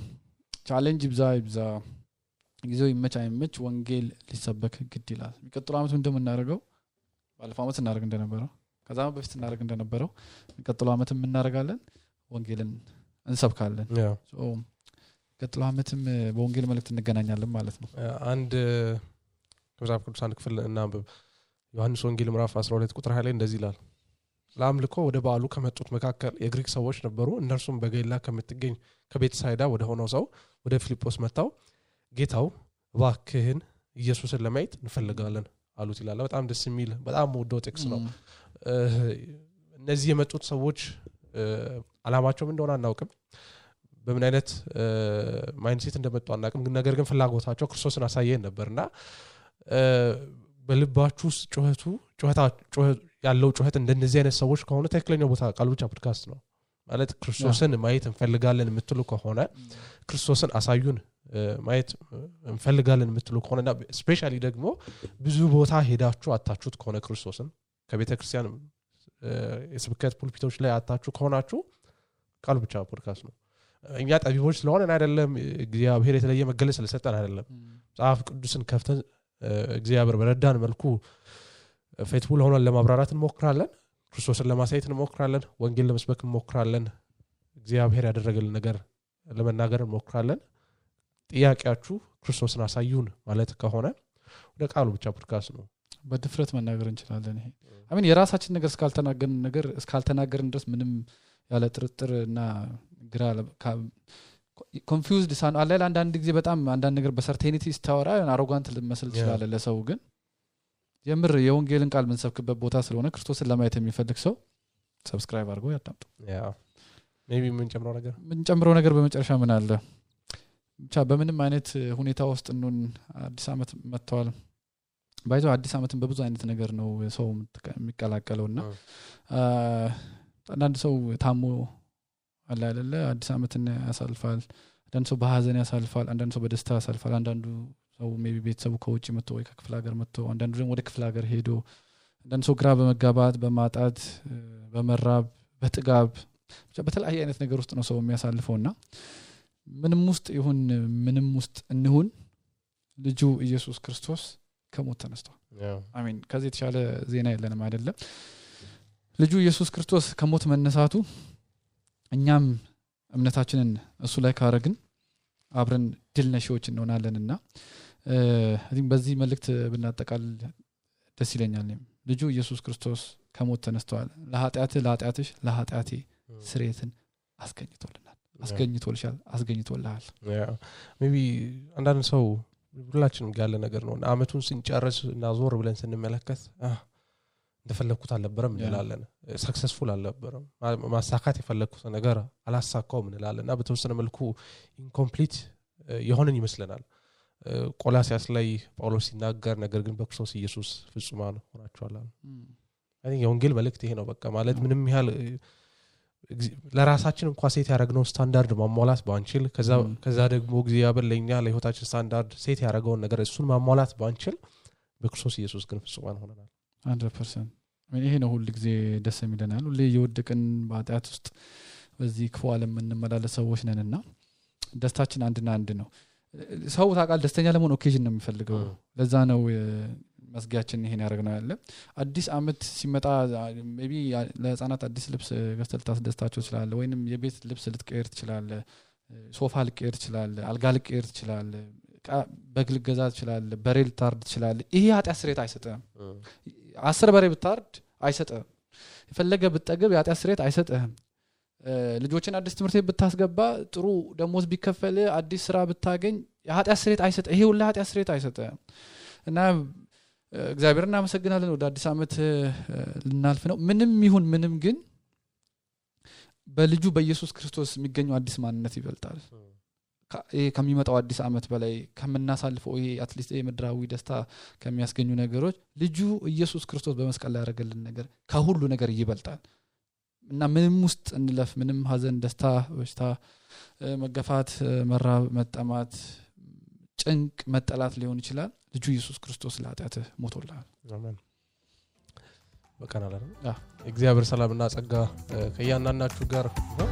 ቻሌንጅ ይብዛ ጊዜው ይመች ወንጌል ሊሰበክ ግድ ይላል የሚቀጥለው አመት እንደምናደርገው ባለፈው አመት እናደርግ እንደነበረው ከዛም በፊት እናደርግ እንደነበረው የሚቀጥለው አመትም እናደርጋለን ወንጌልን እንሰብካለን ሶ የሚቀጥለው አመትም በወንጌል መልእክት እንገናኛለን ማለት ነው አንድ ከመጽሐፍ ቅዱስ አንድ ክፍል እናንብብ ዮሐንስ ወንጌል ምዕራፍ 12 ቁጥር 20 ላይ እንደዚህ ይላል ለአምልኮ ወደ በዓሉ ከመጡት መካከል የግሪክ ሰዎች ነበሩ እነርሱም በገሊላ ከምትገኝ ከቤተሳይዳ ወደ ሆነው ሰው ወደ ፊልጶስ መጣው ጌታው እባክህን ኢየሱስን ለማየት እንፈልጋለን አሉት ይላል በጣም ደስ የሚል በጣም ወደው ጥቅስ ነው እነዚህ የመጡት ሰዎች አላማቸው ምን እንደሆነ አናውቅም በምን አይነት ማይንድሴት እንደመጡ አናውቅም ነገር ግን ፍላጎታቸው ክርስቶስን አሳየን ነበርና በልባችሁ ጩኸት ያለው ጩኸት እንደነዚህ አይነት ሰዎች ከሆነ ትክክለኛው ቦታ ቃል ብቻ ፖድካስት ነው ማለት ክርስቶስን ማየት እንፈልጋለን የምትሉ ከሆነ ክርስቶስን አሳዩን ማየት እንፈልጋለን የምትሉ ከሆነና ስፔሻሊ ደግሞ ብዙ ቦታ ሄዳችሁ አጣችሁት ከሆነ ክርስቶስን ከቤተክርስቲያን የስብከት ፑልፒቶች ላይ አጣችሁ ከሆናችሁ ቃል ብቻ ፖድካስት ነው እኛ ጠቢቦች ስለሆነን አይደለም እግዚአብሔር የተለየ መገለጽ ስለሰጠን አይደለም መጽሐፍ ቅዱስን ከፍተን እግዚአብሔር በረዳን መልኩ ፌትቡል ሆነን ለማብራራት እንሞክራለን ክርስቶስን ለማሳየት እንሞክራለን ወንጌል ለመስበክ እንሞክራለን እግዚአብሔር ያደረገልን ነገር ለመናገር እንሞክራለን ጥያቄያችሁ ክርስቶስን አሳዩን ማለት ከሆነ ወደ ቃሉ ብቻ ፖድካስት ነው በድፍረት መናገር እንችላለን ይሄ አሜን የራሳችን ነገር እስካልተናገርን ድረስ ምንም ያለ ጥርጥርና ግራ ኮንፊውዝድ ሳን አለ አንዳንድ ጊዜ በጣም አንዳንድ ነገር በሰርቴኒቲ ስታወራ አሮጋንት ልመስል ይችላል ለሰው ግን የምር የወንጌልን ቃል ምንሰብክበት ቦታ ስለሆነ ክርስቶስን ለማየት የሚፈልግ ሰው ሰብስክራይብ አድርጎ ያዳምጡ ሜቢ ምን ጨምረው ነገር በመጨረሻ ምን አለ ብቻ በምንም አይነት ሁኔታ ውስጥ እንሆን አዲስ አመት መጥቷል ባይዘው አዲስ አመትን በብዙ አይነት ነገር ነው ሰው የሚቀላቀለውና አንዳንድ ሰው ታሞ አለ አይደለ አዲስ አመትን ያሳልፋል አንዳንድ ሰው በሐዘን ያሳልፋል አንዳንድ ሰው በደስታ ያሳልፋል አንዳንዱ ሰው ሜቢ ቤተሰቡ ከውጪ መጥቶ ወይ ከክፍለ ሀገር መጥቶ አንዳንዱ ደግሞ ወደ ክፍለ ሀገር ሄዶ አንዳንድ ሰው ግራ በመጋባት በማጣት በመራብ በጥጋብ ብቻ በተለያየ አይነት ነገር ውስጥ ነው ሰው የሚያሳልፈውና ምንም ውስጥ እንሁን ልጁ ኢየሱስ ክርስቶስ ከሞት ተነስቷል አሜን ከዚህ የተሻለ ዜና የለንም አይደለም ልጁ ኢየሱስ ክርስቶስ ከሞት መነሳቱ እኛም እምነታችንን እሱ ላይ ካረግን አብረን ድል ነሺዎች እንሆናለንና በዚህ መልእክት ብናጠቃል ደስ ይለኛል ልጁ ኢየሱስ ክርስቶስ ከሞት ተነስቷል ለኃጢአትሽ ለኃጢአቴ ስርየትን አስገኝቶልሃል ሜቢ አንዳንድ ሰው ሁላችንም ያለ ነገር ነው አመቱን ስንጨርስ እና ዞር ብለን ስንመለከት እንደፈለኩት አልነበረም እንላለን ሰክሰስፉል አልነበረም ማሳካት የፈለኩት ነገር አላሳካውም እንላለንና በተወሰነ መልኩ ኢንኮምፕሊት የሆነን ይመስለናል ቆላስያስ ላይ ጳውሎስ ሲናገር ነገር ግን በክርስቶስ ኢየሱስ ፍጹማን ሆናችኋል አይ የወንጌል መልእክት ይሄ ነው በቃ ማለት ምንም ያህል ለራሳችን እንኳን ሴት ያደረግነው ስታንዳርድ ማሟላት ባንችል ከዛ ደግሞ እግዚአብሔር ለኛ ለህይወታችን ስታንዳርድ ሴት ያደረገውን ነገር እሱን ማሟላት ባንችል በክርስቶስ ኢየሱስ ግን ፍጹማን ሆነናል 100% ይሄ ነው ሁሉ ጊዜ ደስ የሚለናል ሁሉ የወደቀን በኃጢአት ውስጥ በዚህ ክፉ ዓለም እንመላለስ ሰዎች ነንና ደስታችን አንድና አንድ ነው ሰው ታቃል ደስተኛ ለመሆን ኦኬዥን ነው የሚፈልገው ለዛ ነው መስጊያችን ይሄን ያደርገናል ያለ አዲስ አመት ሲመጣ ሜቢ ለህፃናት አዲስ ልብስ ገዝተህ ታስደስታቸው ይችላል ወይንም የቤት ልብስ ልትቀይር ይችላል ሶፋ ልትቀይር ይችላል አልጋ ልትቀይር ይችላል በግል ገዛ ይችላል በሬል ታርድ ይችላል ይሄ ኃጢአት ስርየት አይሰጥም 10 በሬ ብታርድ አይሰጥም የፈለገ ብትጠግብ የኃጢአት ስርየት አይሰጥም ልጆችን አዲስ ትምህርት ቤት ብታስገባ ጥሩ ደሞዝ ቢከፈል አዲስ ስራ ብታገኝ የኃጢአት ስርየት አይሰጥም ይሄ ሁሉ ኃጢአት ስርየት አይሰጥም እና እግዚአብሔርን እናመሰግናለን ወደ አዲስ አመት ልናልፍ ነው ምንም ይሁን ምንም ግን በልጁ በኢየሱስ ክርስቶስ የሚገኘው አዲስ ማንነት ይበልጣል ከሚመጣው አዲስ አመት በላይ ከመናሳልፈው ይሄ አትሊስት የምድራዊ ደስታ ከሚያስገኙ ነገሮች ልጁ ኢየሱስ ክርስቶስ በመስቀል ላይ ያደረገልን ነገር ከሁሉ ነገር ይበልጣል እና ምንም ውስጥ እንለፍ ምንም ሐዘን ደስታ በሽታ መገፋት መራብ መጠማት ጭንቅ መጠላት ሊሆን ይችላል ልጁ ኢየሱስ ክርስቶስ ለኃጢአት ሞቶልሃል አሜን በቀናል አይደል እግዚአብሔር ሰላምና ጸጋ ከያናናችሁ ጋር ነው